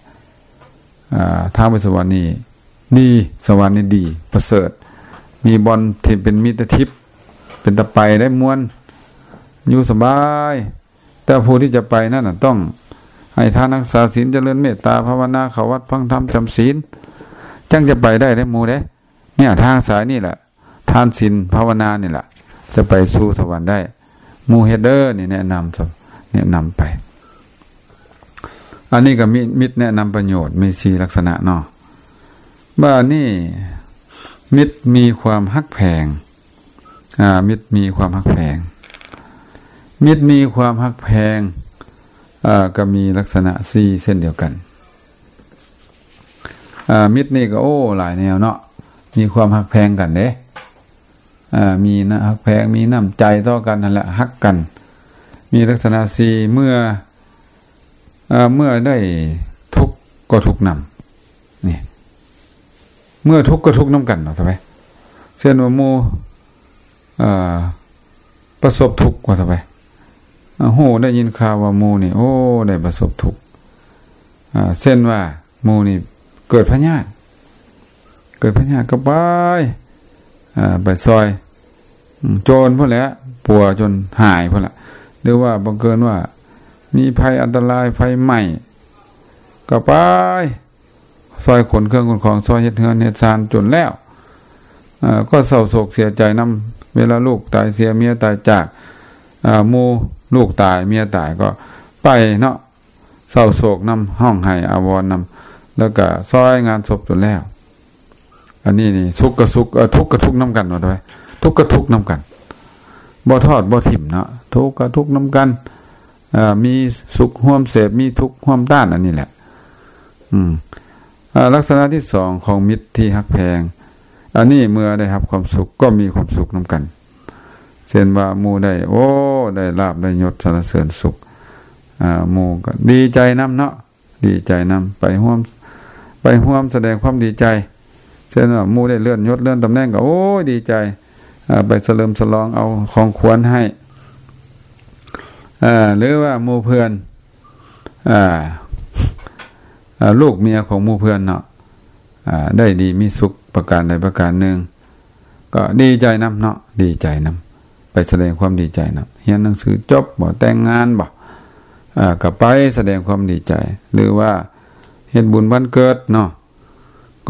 ເອີ ທາງໄປສະຫວັນນີ້ດີ ສະຫວັນນີ້ດີ ປະເສີດ ມີບ່ອນທີ່ເປັນມິດຕະທິບ ເປັນຕາໄປໄດ້ມ່ວນ ຢູ່ສະບາຍ ແຕ່ຜູ້ທີ່ຈະໄປນັ້ນນະ ຕ້ອງໃຫ້ທານ ຮັກສາສິນ ຈະເລີນເມດຕາພາວະນາ ເຂົ້າວັດຟັງທຳ ຈຳສິນ ຈັ່ງຈະໄປໄດ້ເດ້ໝູ່ເດ້ ເນຍ ທາງສາຍນີ້ແຫຼະ ທານ ສິນ ພາວະນານີ້ແຫຼະ ຈະໄປສູ່ສະຫວັນໄດ້ ໝູ່ເຮັດເດີ ນີ້ແນະນຳ ແນະນຳໄປ ອັນນີ້ກໍມີມິດແນະນຳປະໂຫຍດ ມີສີ່ລັກສະນະເນາະ ບາດນີ້ ມິດມີຄວາມຮັກແພງ ອາ ມິດມີຄວາມຮັກແພງ ມິດມີຄວາມຮັກແພງ ອາ ກໍມີລັກສະນະສີ່ເຊັ່ນດຽວກັນ ອາ ມິດນີ້ກໍ ໂອ້ ຫຼາຍແນວເນາະ ມີຄວາມຮັກແພງກັນເດ້ ອາ ມີນະ ຮັກແພງ ມີນ້ຳໃຈຕໍ່ກັນຫັ້ນແຫຼະ ຮັກກັນ ມີລັກສະນະສີ່ ເມື່ອ ເອີ ເມື່ອໄດ້ທຸກກໍທຸກນຳ ນີ້ ເມື່ອທຸກກໍທຸກນຳກັນ ວ່າຊະໄປ ເຊັ່ນວ່າໝູ່ ເອີ ປະສົບທຸກ ວ່າຊະໄປ ເອີ ຮູ້ໄດ້ຍິນຂ່າວວ່າໝູ່ນີ້ ໂອ້ ໄດ້ປະສົບທຸກ ເອີ ເຊັ່ນວ່າໝູ່ນີ້ເກີດພະຍາດ ເກີດພະຍາດກໍໄປ ເອີ ໄປຊ່ອຍ ອືມ ໂຈນພຸ້ນແຫຼະ ປົວຈົນຫາຍພຸ້ນລະ ຫຼືວ່າບັງເກີນວ່າມີໄພອັນຕະລາຍ ໄຟໄໝ້ ກໍໄປຊ່ອຍຂົນເຄື່ອງຂົນຂອງ ຊ່ອຍເຮັດເຮືອນເຮັດຊານຈົນແລ້ວ ເອີ ກໍເສົ້າໂສກເສຍໃຈນຳ ເວລາລູກຕາຍເສຍ ເມຍຕາຍຈາກ ເອີ ໝູ່ ລູກຕາຍ ເມຍຕາຍ ກໍໄປເນາະ ເສົ້າໂສກນຳ ຮ້ອງໄຫ້ອາວອນນຳ ແລ້ວກະຊ່ອຍງານສົບຈົນແລ້ວ ອັນນີ້ນີ້ ສຸກກະສຸກ ເອີ ທຸກກະທຸກນຳກັນ ວ່າໄປ ທຸກກະທຸກນຳກັນ ບໍ່ທອດບໍ່ຖິ້ມເນາະ ທຸກກະທຸກນຳກັນ ເອີ ມີສຸກຮ່ວມເສບ ມີທຸກຮ່ວມຕ້ານ ອັນນີ້ແຫຼະ ອືມ ເອີ ລັກສະນະທີສອງຂອງມິດທີ່ຮັກແພງ ອັນນີ້ເມື່ອໄດ້ຮັບຄວາມສຸກກໍມີຄວາມສຸກນຳກັນ ເຊັ່ນວ່າໝູ່ໄດ້ ໂອ້ ໄດ້ລາບໄດ້ຍົດ ສັນລະເສີນສຸກ ອ່າ ໝູ່ກໍດີໃຈນຳເນາະ ດີໃຈນຳ ໄປຮ່ວມ ໄປຮ່ວມສະແດງຄວາມດີໃຈ ເຊັ່ນວ່າໝູ່ໄດ້ເລື່ອນຍົດເລື່ອນຕຳແໜ່ງກໍ ໂອ້ຍ ດີໃຈ ອ່າ ໄປສະເຫຼີມສະຫຼອງເອົາຂອງຂວັນໃຫ້ ອ່າ ຫຼືວ່າໝູ່ເພື່ອນ ອ່າ ອ່າ ລູກເມຍຂອງໝູ່ເພື່ອນເນາະ ອ່າ ໄດ້ດີມີສຸກປະການໃດປະການໜຶ່ງ ກໍດີໃຈນຳເນາະ ດີໃຈນຳ ໄປສະແດງຄວາມດີໃຈນຳ ຮຽນໜັງສືຈົບບໍ ແຕ່ງງານບໍ ອ່າ ກໍໄປສະແດງຄວາມດີໃຈ ຫຼືວ່າເຮັດບຸນວັນເກີດເນາະ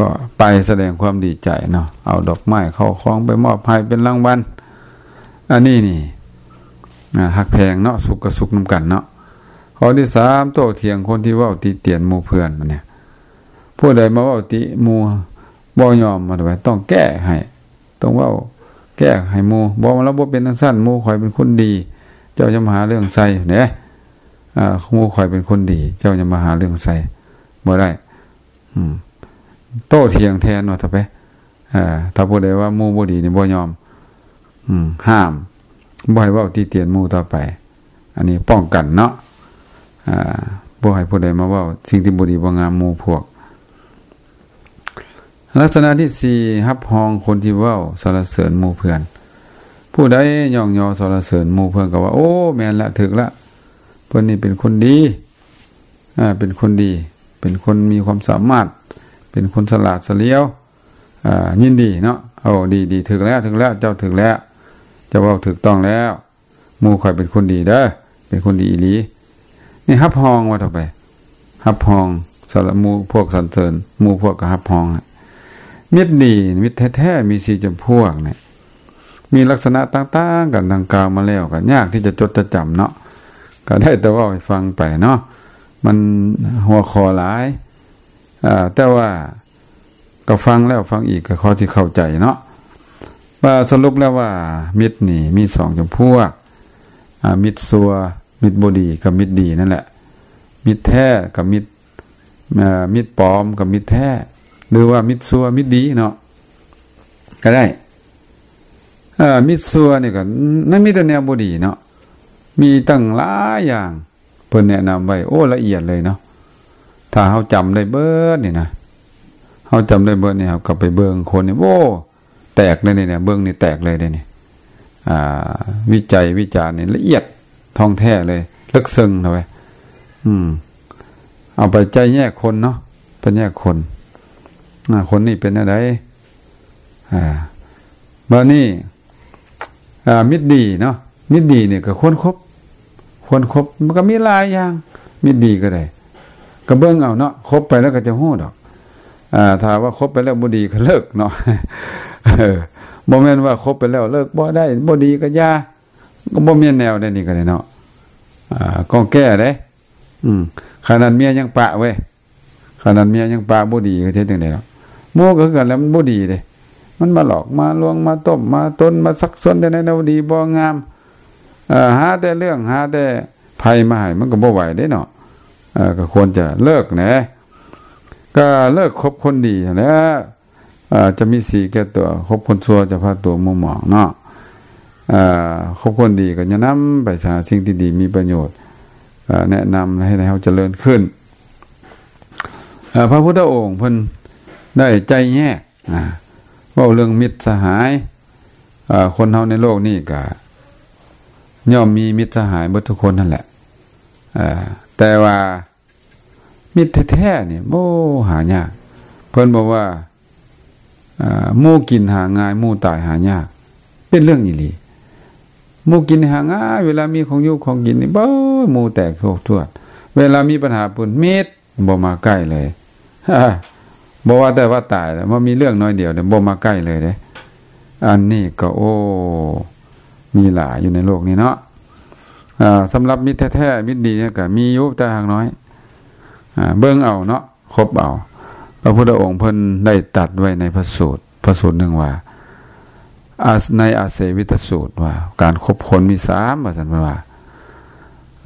ກໍໄປສະແດງຄວາມດີໃຈເນາະ ເອົາດອກໄມ້ເຂົ້າຂອງໄປມອບໃຫ້ເປັນລາງວັນ ອັນນີ້ນີ້ ອ່າ ຮັກແພງເນາະ ສຸກກໍສຸກນຳກັນເນາະ. ຂໍ້ທີສາມ ໂຕ້ຖຽງຄົນທີ່ເວົ້າຕິຕຽນໝູ່ເພື່ອນ ບັດນີ້ ຜູ້ໃດມາເວົ້າຕິໝູ່ບໍ່ຍອມ ມາໄປ ຕ້ອງແກ້ໃຫ້ ຕ້ອງເວົ້າແກ້ໃຫ້ໝູ່ ບໍ່ ລາວບໍ່ເປັນຈັ່ງຊັ້ນ ໝູ່ຂ້ອຍເປັນຄົນດີ ເຈົ້າຢ່າມາຫາເລື່ອງໃສ່ເດ້ ອ່າ ໝູ່ຂ້ອຍເປັນຄົນດີ ເຈົ້າຢ່າມາຫາເລື່ອງໃສ່ ບໍ່ໄດ້ ອືມ ໂຕ້ຖຽງແທນວ່າ ຖ້າໄປ ອ່າ ຖ້າຜູ້ໃດວ່າໝູ່ບໍ່ດີນີ້ບໍ່ຍອມ ອືມ ຫ້າມ ບໍ່ໃຫ້ເວົ້າຕິຕຽນໝູ່ຕໍ່ໄປ ອັນນີ້ປ້ອງກັນເນາະ ອ່າ ບໍ່ໃຫ້ຜູ້ໃດມາເວົ້າສິ່ງທີ່ບໍ່ດີບໍ່ງາມໝູ່ພວກ. ລັກສະນະທີສີ່ ຮັບຮອງຄົນທີ່ເວົ້າສັນລະເສີນໝູ່ເພື່ອນ ຜູ້ໃດຍ້ອງຍໍສັນລະເສີນໝູ່ເພື່ອນກໍວ່າ ໂອ້ ແມ່ນລະ ຖືກລະ ເພິ່ນນີ້ເປັນຄົນດີ ອ່າ ເປັນຄົນດີ ເປັນຄົນມີຄວາມສາມາດ ເປັນຄົນສະຫຼາດສະຫຼຽວ ອ່າ ຍິນດີເນາະ ໂອ້ ດີ ດີ ຖືກແລ້ວ ຖືກແລ້ວ ເຈົ້າຖືກແລ້ວ ເຈົ້າເວົ້າຖືກຕ້ອງແລ້ວ ໝູ່ຂ້ອຍເປັນຄົນດີເດີ ເປັນຄົນດີອີ່ຫຼີ ນີ້ຮັບຮອງວ່າຕໍ່ໄປ ຮັບຮອງ ສຳລັບໝູ່ພວກສັນເສີນ ໝູ່ພວກກໍຮັບຮອງ. ມິດດີ ມິດແທ້ໆ ມີສີ່ຈຳພວກນີ້ ມີລັກສະນະຕ່າງໆກັນ ດັ່ງກ່າວມາແລ້ວ ກໍຍາກທີ່ຈະຈົດຈະຈຳເນາະ ກໍໄດ້ແຕ່ເວົ້າໃຫ້ຟັງໄປເນາະ ມັນຫົວຂໍ້ຫຼາຍ ອ່າ ແຕ່ວ່າກໍຟັງແລ້ວຟັງອີກກໍພໍຊິເຂົ້າໃຈເນາະ ວ່າສະຫຼຸບແລ້ວວ່າມິດນີ້ມີສອງຈຳພວກ ອ່າ ມິດຊົ່ວ ມິດບໍ່ດີກັບມິດດີນັ້ນແຫຼະ ມິດແທ້ກັບມິດ ເອີ ມິດປອມກັບມິດແທ້ ຫຼືວ່າມິດຊົ່ວມິດດີເນາະ ກໍໄດ້ ເອີ ມິດຊົ່ວນີ້ກໍ ມັນມີແຕ່ແນວບໍ່ດີເນາະ ມີຕັ້ງຫຼາຍຢ່າງ ເພິ່ນແນະນຳໄວ້ ໂອ້ ລະອຽດເລີຍເນາະ ຖ້າເຮົາຈຳໄດ້ເບິດນີ້ນະ ເຮົາຈຳໄດ້ເບິດນີ້ ເຮົາກໍໄປເບິ່ງຄົນນີ້ ໂອ້ ແຕກເລີຍນີ້ ເບິ່ງນີ້ແຕກເລີຍເດ້ນີ້ ອ່າ ວິໄຈວິຈານນີ້ລະອຽດທ່ອງແທ້ເລີຍ ເລິກເຊິ່ງເນາະເວີຍ ອືມ ເອົາໄປໄຈແຍກຄົນເນາະ ໄປແຍກຄົນ ອ່າ ຄົນນີ້ເປັນແນວໃດ ອ່າ ບາດນີ້ ອ່າ ມິດດີເນາະ ມິດດີນີ້ກໍຄວນຄົບ ຄວນຄົບ ມັນກໍມີຫຼາຍຢ່າງ ມິດດີກໍໄດ້ ກໍເບິ່ງເອົາເນາະ ຄົບໄປແລ້ວກໍຈະຮູ້ດອກ ອ່າ ຖ້າວ່າຄົບໄປແລ້ວບໍ່ດີກໍເລີກເນາະ ເອີ ບໍ່ແມ່ນວ່າຄົບໄປແລ້ວເລີກບໍ່ໄດ້ ບໍ່ດີກໍຢ່າ ກໍບໍ່ແມ່ນແນວໃດນີ້ກໍໄດ້ເນາະ ອ່າ ກໍແກ້ເດ້ ອືມ ຂະໜາດເມຍຍັງປະເວີຍ ຂະໜາດເມຍຍັງປະບໍ່ດີກໍເຮັດຈັ່ງໃດເນາະ ໝູ່ກໍຄືກັນແຫຼະ ມັນບໍ່ດີເດ້ ມັນມາຫຼອກມາລວງ ມາຕົ້ມມາຕົນ ມາຊັກຊວນແນວໃດແນວບໍ່ດີບໍ່ງາມ ເອີ ຫາແຕ່ເລື່ອງ ຫາແຕ່ໄພມາໃຫ້ ມັນກໍບໍ່ໄຫວເດ້ເນາະ ເອີ ກໍຄວນຈະເລີກແຫຼະ ກໍເລີກຄົບຄົນດີຫັ້ນແຫຼະ ເອີ ຈະມີສີແກ່ຕົວ ຄົບຄົນຊົ່ວຈະພາຕົວມົວໝອງເນາະ ເອີ ຄົບຄົນດີກໍຈະນຳໄປຫາສິ່ງທີ່ດີມີປະໂຫຍດ ເອີ ແນະນຳໃຫ້ເຮົາຈະເລີນຂຶ້ນ ເອີ ພະພຸດທະອົງເພິ່ນໄດ້ໄຈແຍກ ອ່າ ເວົ້າເລື່ອງມິດສະຫາຍ ເອີ ຄົນເຮົາໃນໂລກນີ້ກະຍ່ອມມີມິດສະຫາຍເບິດທຸກຄົນຫັ້ນແຫຼະ ເອີ ແຕ່ວ່າມິດແທ້ໆນີ້ ໂອ້ ຫາຍາກ ເພິ່ນບອກວ່າ ເອີ ໝູ່ກິນຫາງ່າຍ ໝູ່ຕາຍຫາຍາກ ເປັນເລື່ອງອີ່ຫຼີ ໝູ່ກິນຫາງ່າຍ ເວລາມີຂອງຢູ່ຂອງກິນນີ້ ໂອ້ຍ ໝູ່ແຕກໂພກທວດ ເວລາມີບັນຫາປຸ້ນ ມິດ ບໍ່ມາໃກ້ເລີຍ ບໍ່ວ່າແຕ່ວ່າຕາຍແລ້ວ ບໍ່ມີເລື່ອງໜ້ອຍດຽວເດ ບໍ່ມາໃກ້ເລີຍເດ້ ອັນນີ້ກໍ ໂອ້ ມີຫຼາຍຢູ່ໃນໂລກນີ້ເນາະ ອ່າ ສຳລັບມິດແທ້ໆ ມິດດີນີ້ກໍມີຢູ່ ແຕ່ຫາກໜ້ອຍ ອ່າ ເບິ່ງເອົາເນາະ ຄົບເອົາ ພະພຸດທະອົງເພິ່ນໄດ້ຕັດໄວ້ໃນພະສູດ ພະສູດໜຶ່ງວ່າ ອາ ໃນອາເສວິຕະສູດວ່າ ການຄົບຄົນມີສາມ ວ່າຊັ້ນ ເພິ່ນວ່າ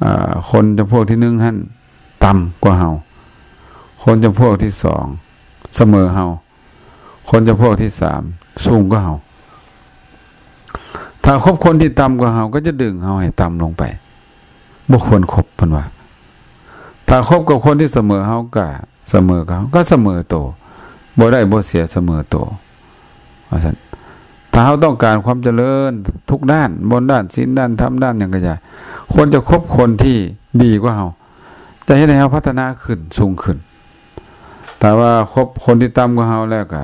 ອ່າ ຄົນຈຳພວກທີໜຶ່ງຫັ້ນຕ່ຳກວ່າເຮົາ ຄົນຈຳພວກທີສອງສະເໝີເຮົາ ຄົນຈຳພວກທີສາມສູງກວ່າເຮົາ ຖ້າຄົບຄົນທີ່ຕ່ຳກວ່າເຮົາ ກໍຈະດຶງເຮົາໃຫ້ຕ່ຳລົງໄປ ບໍ່ຄວນຄົບ ເພິ່ນວ່າ ຖ້າຄົບກັບຄົນທີ່ສະເໝີເຮົາກໍສະເໝີກັບເຮົາ ກໍສະເໝີໂຕ ບໍ່ໄດ້ບໍ່ເສຍ ສະເໝີໂຕ ວ່າຊັ້ນ. ຖ້າເຮົາຕ້ອງການຄວາມຈະເລີນທຸກດ້ານ ບໍ່ວ່າດ້ານສິນ ດ້ານທຳ ດ້ານຫຍັງກໍຢ່າ ຄວນຈະຄົບຄົນທີ່ດີກວ່າເຮົາ ຈະເຮັດໃຫ້ເຮົາພັດທະນາຂຶ້ນ ສູງຂຶ້ນ. ຖ້າວ່າຄົບຄົນທີ່ຕ່ຳກວ່າເຮົາແລ້ວກໍ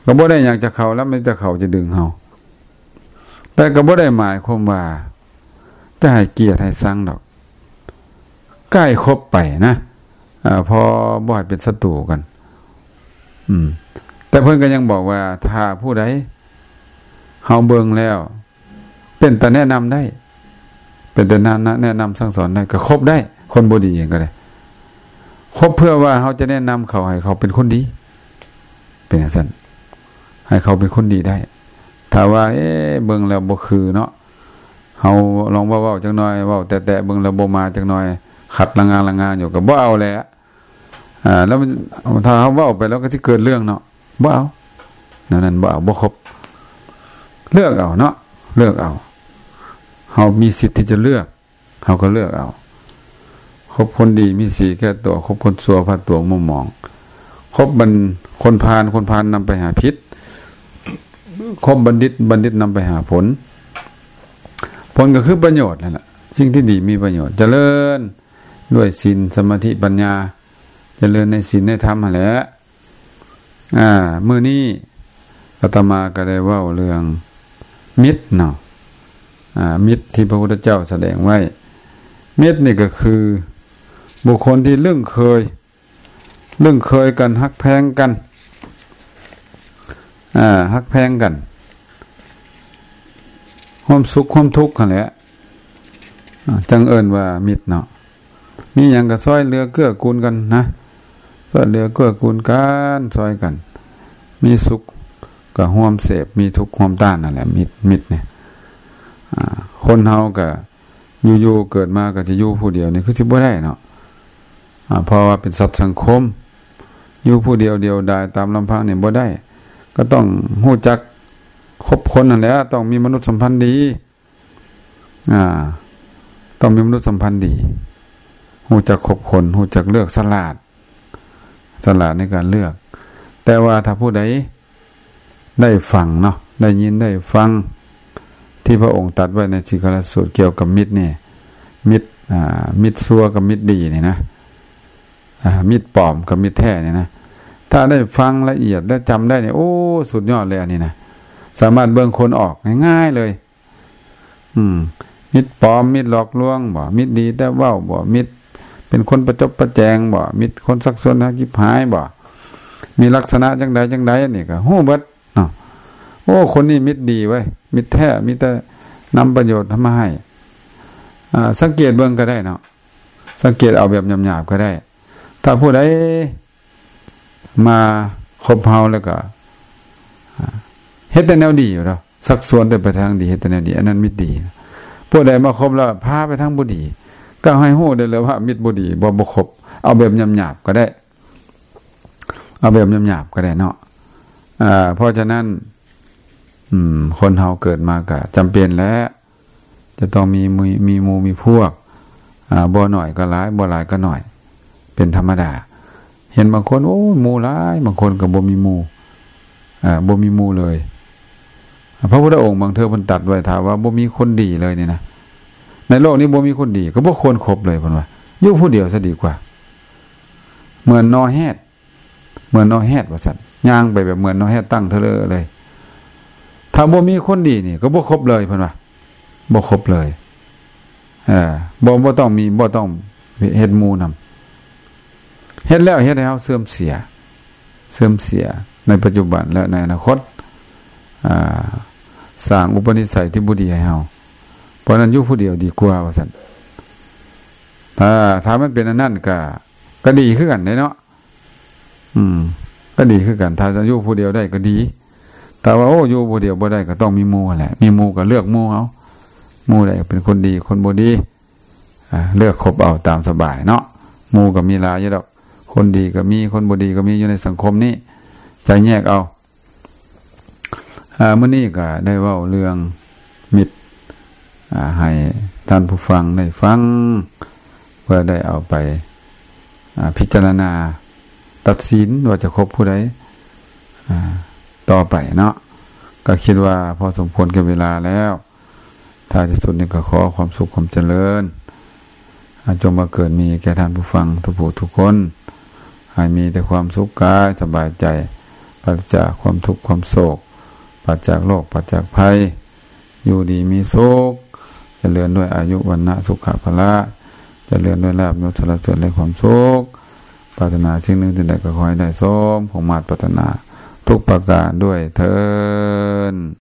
ກໍບໍ່ໄດ້ຫຍັງຈາກເຂົາແລ້ວ ມີແຕ່ເຂົາຈະດຶງເຮົາ. ແຕ່ກໍບໍ່ໄດ້ໝາຍຄວາມວ່າຈະໃຫ້ກຽດໃຫ້ຊັງດອກ ກໍໃຫ້ຄົບໄປນະ ເອີ ພໍບໍ່ໃຫ້ເປັນສັດຕູກັນ. ອືມ ແຕ່ເພິ່ນກໍຍັງບອກວ່າ ຖ້າຜູ້ໃດເຮົາເບິ່ງແລ້ວ ເປັນຕາແນະນຳໄດ້ ເປັນຕາແນະນຳ ແນະນຳສັ່ງສອນໄດ້ ກໍຄົບໄດ້ ຄົນບໍ່ດີເອງກໍໄດ້ ຄົບເພື່ອວ່າເຮົາຈະແນະນຳເຂົາໃຫ້ເຂົາເປັນຄົນດີ ເປັນຈັ່ງຊັ້ນ ໃຫ້ເຂົາເປັນຄົນດີໄດ້. ຖ້າວ່າ ເອ ເບິ່ງແລ້ວບໍ່ຄືເນາະ ເຮົາລອງເວົ້າໆຈັກໜ່ອຍ ເວົ້າແຕະໆເບິ່ງແລ້ວບໍ່ມາຈັກໜ່ອຍ ຂັດລະງານລະງານຢູ່ ກໍບໍ່ເອົາແຫຼະ. ອ່າ ແລ້ວມັນ ຖ້າເຮົາເວົ້າໄປແລ້ວກໍຊິເກີດເລື່ອງເນາະ ບໍ່ເອົາ ແນວນັ້ນບໍ່ເອົາ ບໍ່ຄົບ. ເລືອກເອົາເນາະ ເລືອກເອົາ ເຮົາມີສິດທີ່ຈະເລືອກ ເຮົາກໍເລືອກເອົາ. ຄົບຄົນດີມີສີແກ່ຕົວ ຄົບຄົນຊົ່ວພາຕົວມົວໝອງ. ຄົບບັນ ຄົນພານ ຄົນພານນຳໄປຫາພິດ ຄົບບັນດິດ ບັນດິດນຳໄປຫາຜົນ. ຜົນກໍຄືປະໂຫຍດນັ້ນລະ ສິ່ງທີ່ດີມີປະໂຫຍດ ຈະເລີນດ້ວຍສິນ ສະມາທິ ປັນຍາ ຈະເລີນໃນສິນໃນທຳຫັ້ນແຫຼະ. ອ່າ ມື້ນີ້ອາດຕະມາກໍໄດ້ເວົ້າເລື່ອງມິດເນາະ ອ່າ ມິດທີ່ພະພຸດທະເຈົ້າສະແດງໄວ້. ມິດນີ້ກໍຄືບຸກຄົນທີ່ລຶ້ງເຄີຍ ລຶ້ງເຄີຍກັນ ຮັກແພງກັນ ອ່າ ຮັກແພງກັນ ຮ່ວມສຸກຮ່ວມທຸກຫັ້ນແຫຼະ. ອ່າ ຈັ່ງເອີ້ນວ່າມິດເນາະ ມີຫຍັງກໍຊ່ອຍເຫຼືອເກື້ອກູນກັນນະ ຊ່ອຍເຫຼືອເກື້ອກູນກັນ ຊ່ອຍກັນ ມີສຸກກໍຮ່ວມເສບ ມີທຸກຮ່ວມຕ້ານ ນັ້ນແຫຼະ ມິດ ມິດນີ້. ອ່າ ຄົນເຮົາກໍຢູ່ໆເກີດມາກໍຈະຢູ່ຜູ້ດຽວນີ້ຄືຊິບໍ່ໄດ້ເນາະ ອ່າ ເພາະວ່າເປັນສັດສັງຄົມ ຢູ່ຜູ້ດຽວດຽວດາຍຕາມລຳພັງນີ້ບໍ່ໄດ້ ກໍຕ້ອງຮູ້ຈັກຄົບຄົນຫັ້ນແຫຼະ ຕ້ອງມີມະນຸດສຳພັນດີ. ອ່າ ຕ້ອງມີມະນຸດສຳພັນດີ ຮູ້ຈັກຄົບຄົນ ຮູ້ຈັກເລືອກ ສະຫຼາດ ສະຫຼາດໃນການເລືອກ. ແຕ່ວ່າຖ້າຜູ້ໃດໄດ້ຟັງເນາະ ໄດ້ຍິນໄດ້ຟັງທີ່ພະອົງຕັດໄວ້ໃນສິງຄະລາສູດກ່ຽວກັບມິດນີ້ ມິດ ອ່າ ມິດຊົ່ວກັບມິດດີນີ້ນະ ອ່າ ມິດປອມກັບມິດແທ້ນີ້ນະ ຖ້າໄດ້ຟັງລະອຽດ ແລະ ຈຳໄດ້ນີ້ ໂອ້ ສຸດຍອດເລີຍອັນນີ້ນະ ສາມາດເບິ່ງຄົນອອກງ່າຍໆເລີຍ. ອືມ ມິດປອມ ມິດຫຼອກລວງບໍ ມິດດີແຕ່ເວົ້າບໍ ມິດເປັນຄົນປະຈົບປະແຈງບໍ ມິດຄົນຊັກຊວນໃຫ້ຈິບຫາຍບໍ ມີລັກສະນະຈັ່ງໃດຈັ່ງໃດ ອັນນີ້ກໍຮູ້ເບິດເນາະ. ໂອ້ ຄົນນີ້ມິດດີເວີຍ ມິດແທ້ ມີແຕ່ນຳປະໂຫຍດມາໃຫ້. ອ່າ ສັງເກດເບິ່ງກໍໄດ້ເນາະ ສັງເກດເອົາແບບຫຍາບໆກໍໄດ້. ຖ້າຜູ້ໃດມາຄົບເຮົາແລ້ວກໍ ອ່າ ເຮັດແຕ່ແນວດີຢູ່ດອກ ຊັກຊວນແຕ່ໄປທາງດີ ເຮັດແຕ່ແນວດີ ອັນນັ້ນມິດດີ. ຜູ້ໃດມາຄົບແລ້ວພາໄປທາງບໍ່ດີ ກໍໃຫ້ຮູ້ໄດ້ເລີຍວ່າມິດບໍ່ດີ ບໍ່ ບໍ່ຄົບ. ເອົາແບບຫຍາບໆກໍໄດ້ ເອົາແບບຫຍາບໆກໍໄດ້ເນາະ. ເອີ ເພາະສະນັ້ນ ອືມ ຄົນເຮົາເກີດມາກໍຈຳເປັນແຫຼະ ຈະຕ້ອງມີ ມີ ມີໝູ່ມີພວກ ອ່າ ບໍ່ໜ້ອຍກໍຫຼາຍ ບໍ່ຫຼາຍກໍໜ້ອຍ ເປັນທຳມະດາ. ເຫັນບາງຄົນ ໂອ້ຍ ໝູ່ຫຼາຍ ບາງຄົນກໍບໍ່ມີໝູ່ ເອີ ບໍ່ມີໝູ່ເລີຍ. ພະພຸດທະອົງບາງເທື່ອເພິ່ນຕັດໄວ້ ຖ້າວ່າບໍ່ມີຄົນດີເລີຍນີ້ນະ ໃນໂລກນີ້ບໍ່ມີຄົນດີ ກໍບໍ່ຄວນຄົບເລີຍ ເພິ່ນວ່າ ຢູ່ຜູ້ດຽວຊະດີກວ່າ ເໝືອນໜໍ່ແຮດ ເໝືອນໜໍ່ແຮດວ່າຊັ້ນ ຍ່າງໄປແບບເໝືອນໜໍ່ແຮດຕັ້ງເທີເລີເລີຍ. ຖ້າບໍ່ມີຄົນດີນີ້ກໍບໍ່ຄົບເລີຍ ເພິ່ນວ່າ ບໍ່ຄົບເລີຍ. ເອີ ບໍ່ ບໍ່ຕ້ອງມີ ບໍ່ຕ້ອງເຮັດໝູ່ນຳ ເຮັດແລ້ວເຮັດໃຫ້ເຮົາເສື່ອມເສຍ ເສື່ອມເສຍໃນປັດຈຸບັນ ແລະ ໃນອະນາຄົດ ອ່າ ສ້າງອຸປະນິໄສທີ່ບໍ່ດີໃຫ້ເຮົາ. ເພາະນັ້ນຢູ່ຜູ້ດຽວດີກວ່າວ່າຊັ້ນ. ຖ້າ ຖ້າມັນເປັນອັນນັ້ນກໍ ກໍດີຄືກັນເດ້ເນາະ. ອືມ ກໍດີຄືກັນ ຖ້າຈະຢູ່ຜູ້ດຽວໄດ້ກໍດີ ແຕ່ວ່າ ໂອ້ ຢູ່ຜູ້ດຽວບໍ່ໄດ້ກໍຕ້ອງມີໝູ່ຫັ້ນແຫຼະ ມີໝູ່ກໍເລືອກໝູ່ເອົາ ໝູ່ໃດເປັນຄົນດີ ຄົນບໍ່ດີ ອ່າ ເລືອກຄົບເອົາຕາມສະບາຍເນາະ. ໝູ່ກໍມີຫຼາຍຢູ່ດອກ ຄົນດີກໍມີ ຄົນບໍ່ດີກໍມີ ຢູ່ໃນສັງຄົມນີ້ ຈະແຍກເອົາ. ອ່າ ມື້ນີ້ກໍໄດ້ເວົ້າເລື່ອງມິດ ອ່າ ໃຫ້ທ່ານຜູ້ຟັງໄດ້ຟັງ ເພື່ອໄດ້ເອົາໄປ ອາ ພິຈາລະນາຕັດສິນວ່າຈະຄົບຜູ້ໃດ ອາ ຕໍ່ໄປເນາະ. ກໍຄິດວ່າພໍສົມຄວນແກ່ເວລາແລ້ວ. ທ້າຍທີ່ສຸດນີ້ກໍຂໍຄວາມສຸກຄວາມຈະເລີນ ອາ ຈົ່ງບັງເກີດມີແກ່ທ່ານຜູ້ຟັງທຸກຜູ້ທຸກຄົນ ໃຫ້ມີແຕ່ຄວາມສຸກກາຍສະບາຍໃຈ ປາສະຈາກຄວາມທຸກຄວາມໂສກ ປາສະຈາກໂລກ ປາສະຈາກໄພ ຢູ່ດີມີສຸກ ຈະເລີນດ້ວຍອາຍຸ ວັນນະ ສຸຂະ ພະລະ ຈະເລີນດ້ວຍລາບຍົດ ສັນລະເສີນ ແລະ ຄວາມສຸກ. ປາດຖະໜາສິ່ງໜຶ່ງສິ່ງໃດກໍຂໍໃຫ້ໄດ້ສົມຄວາມມາດປາດຖະໜາທຸກປະການດ້ວຍເທີ້ນ.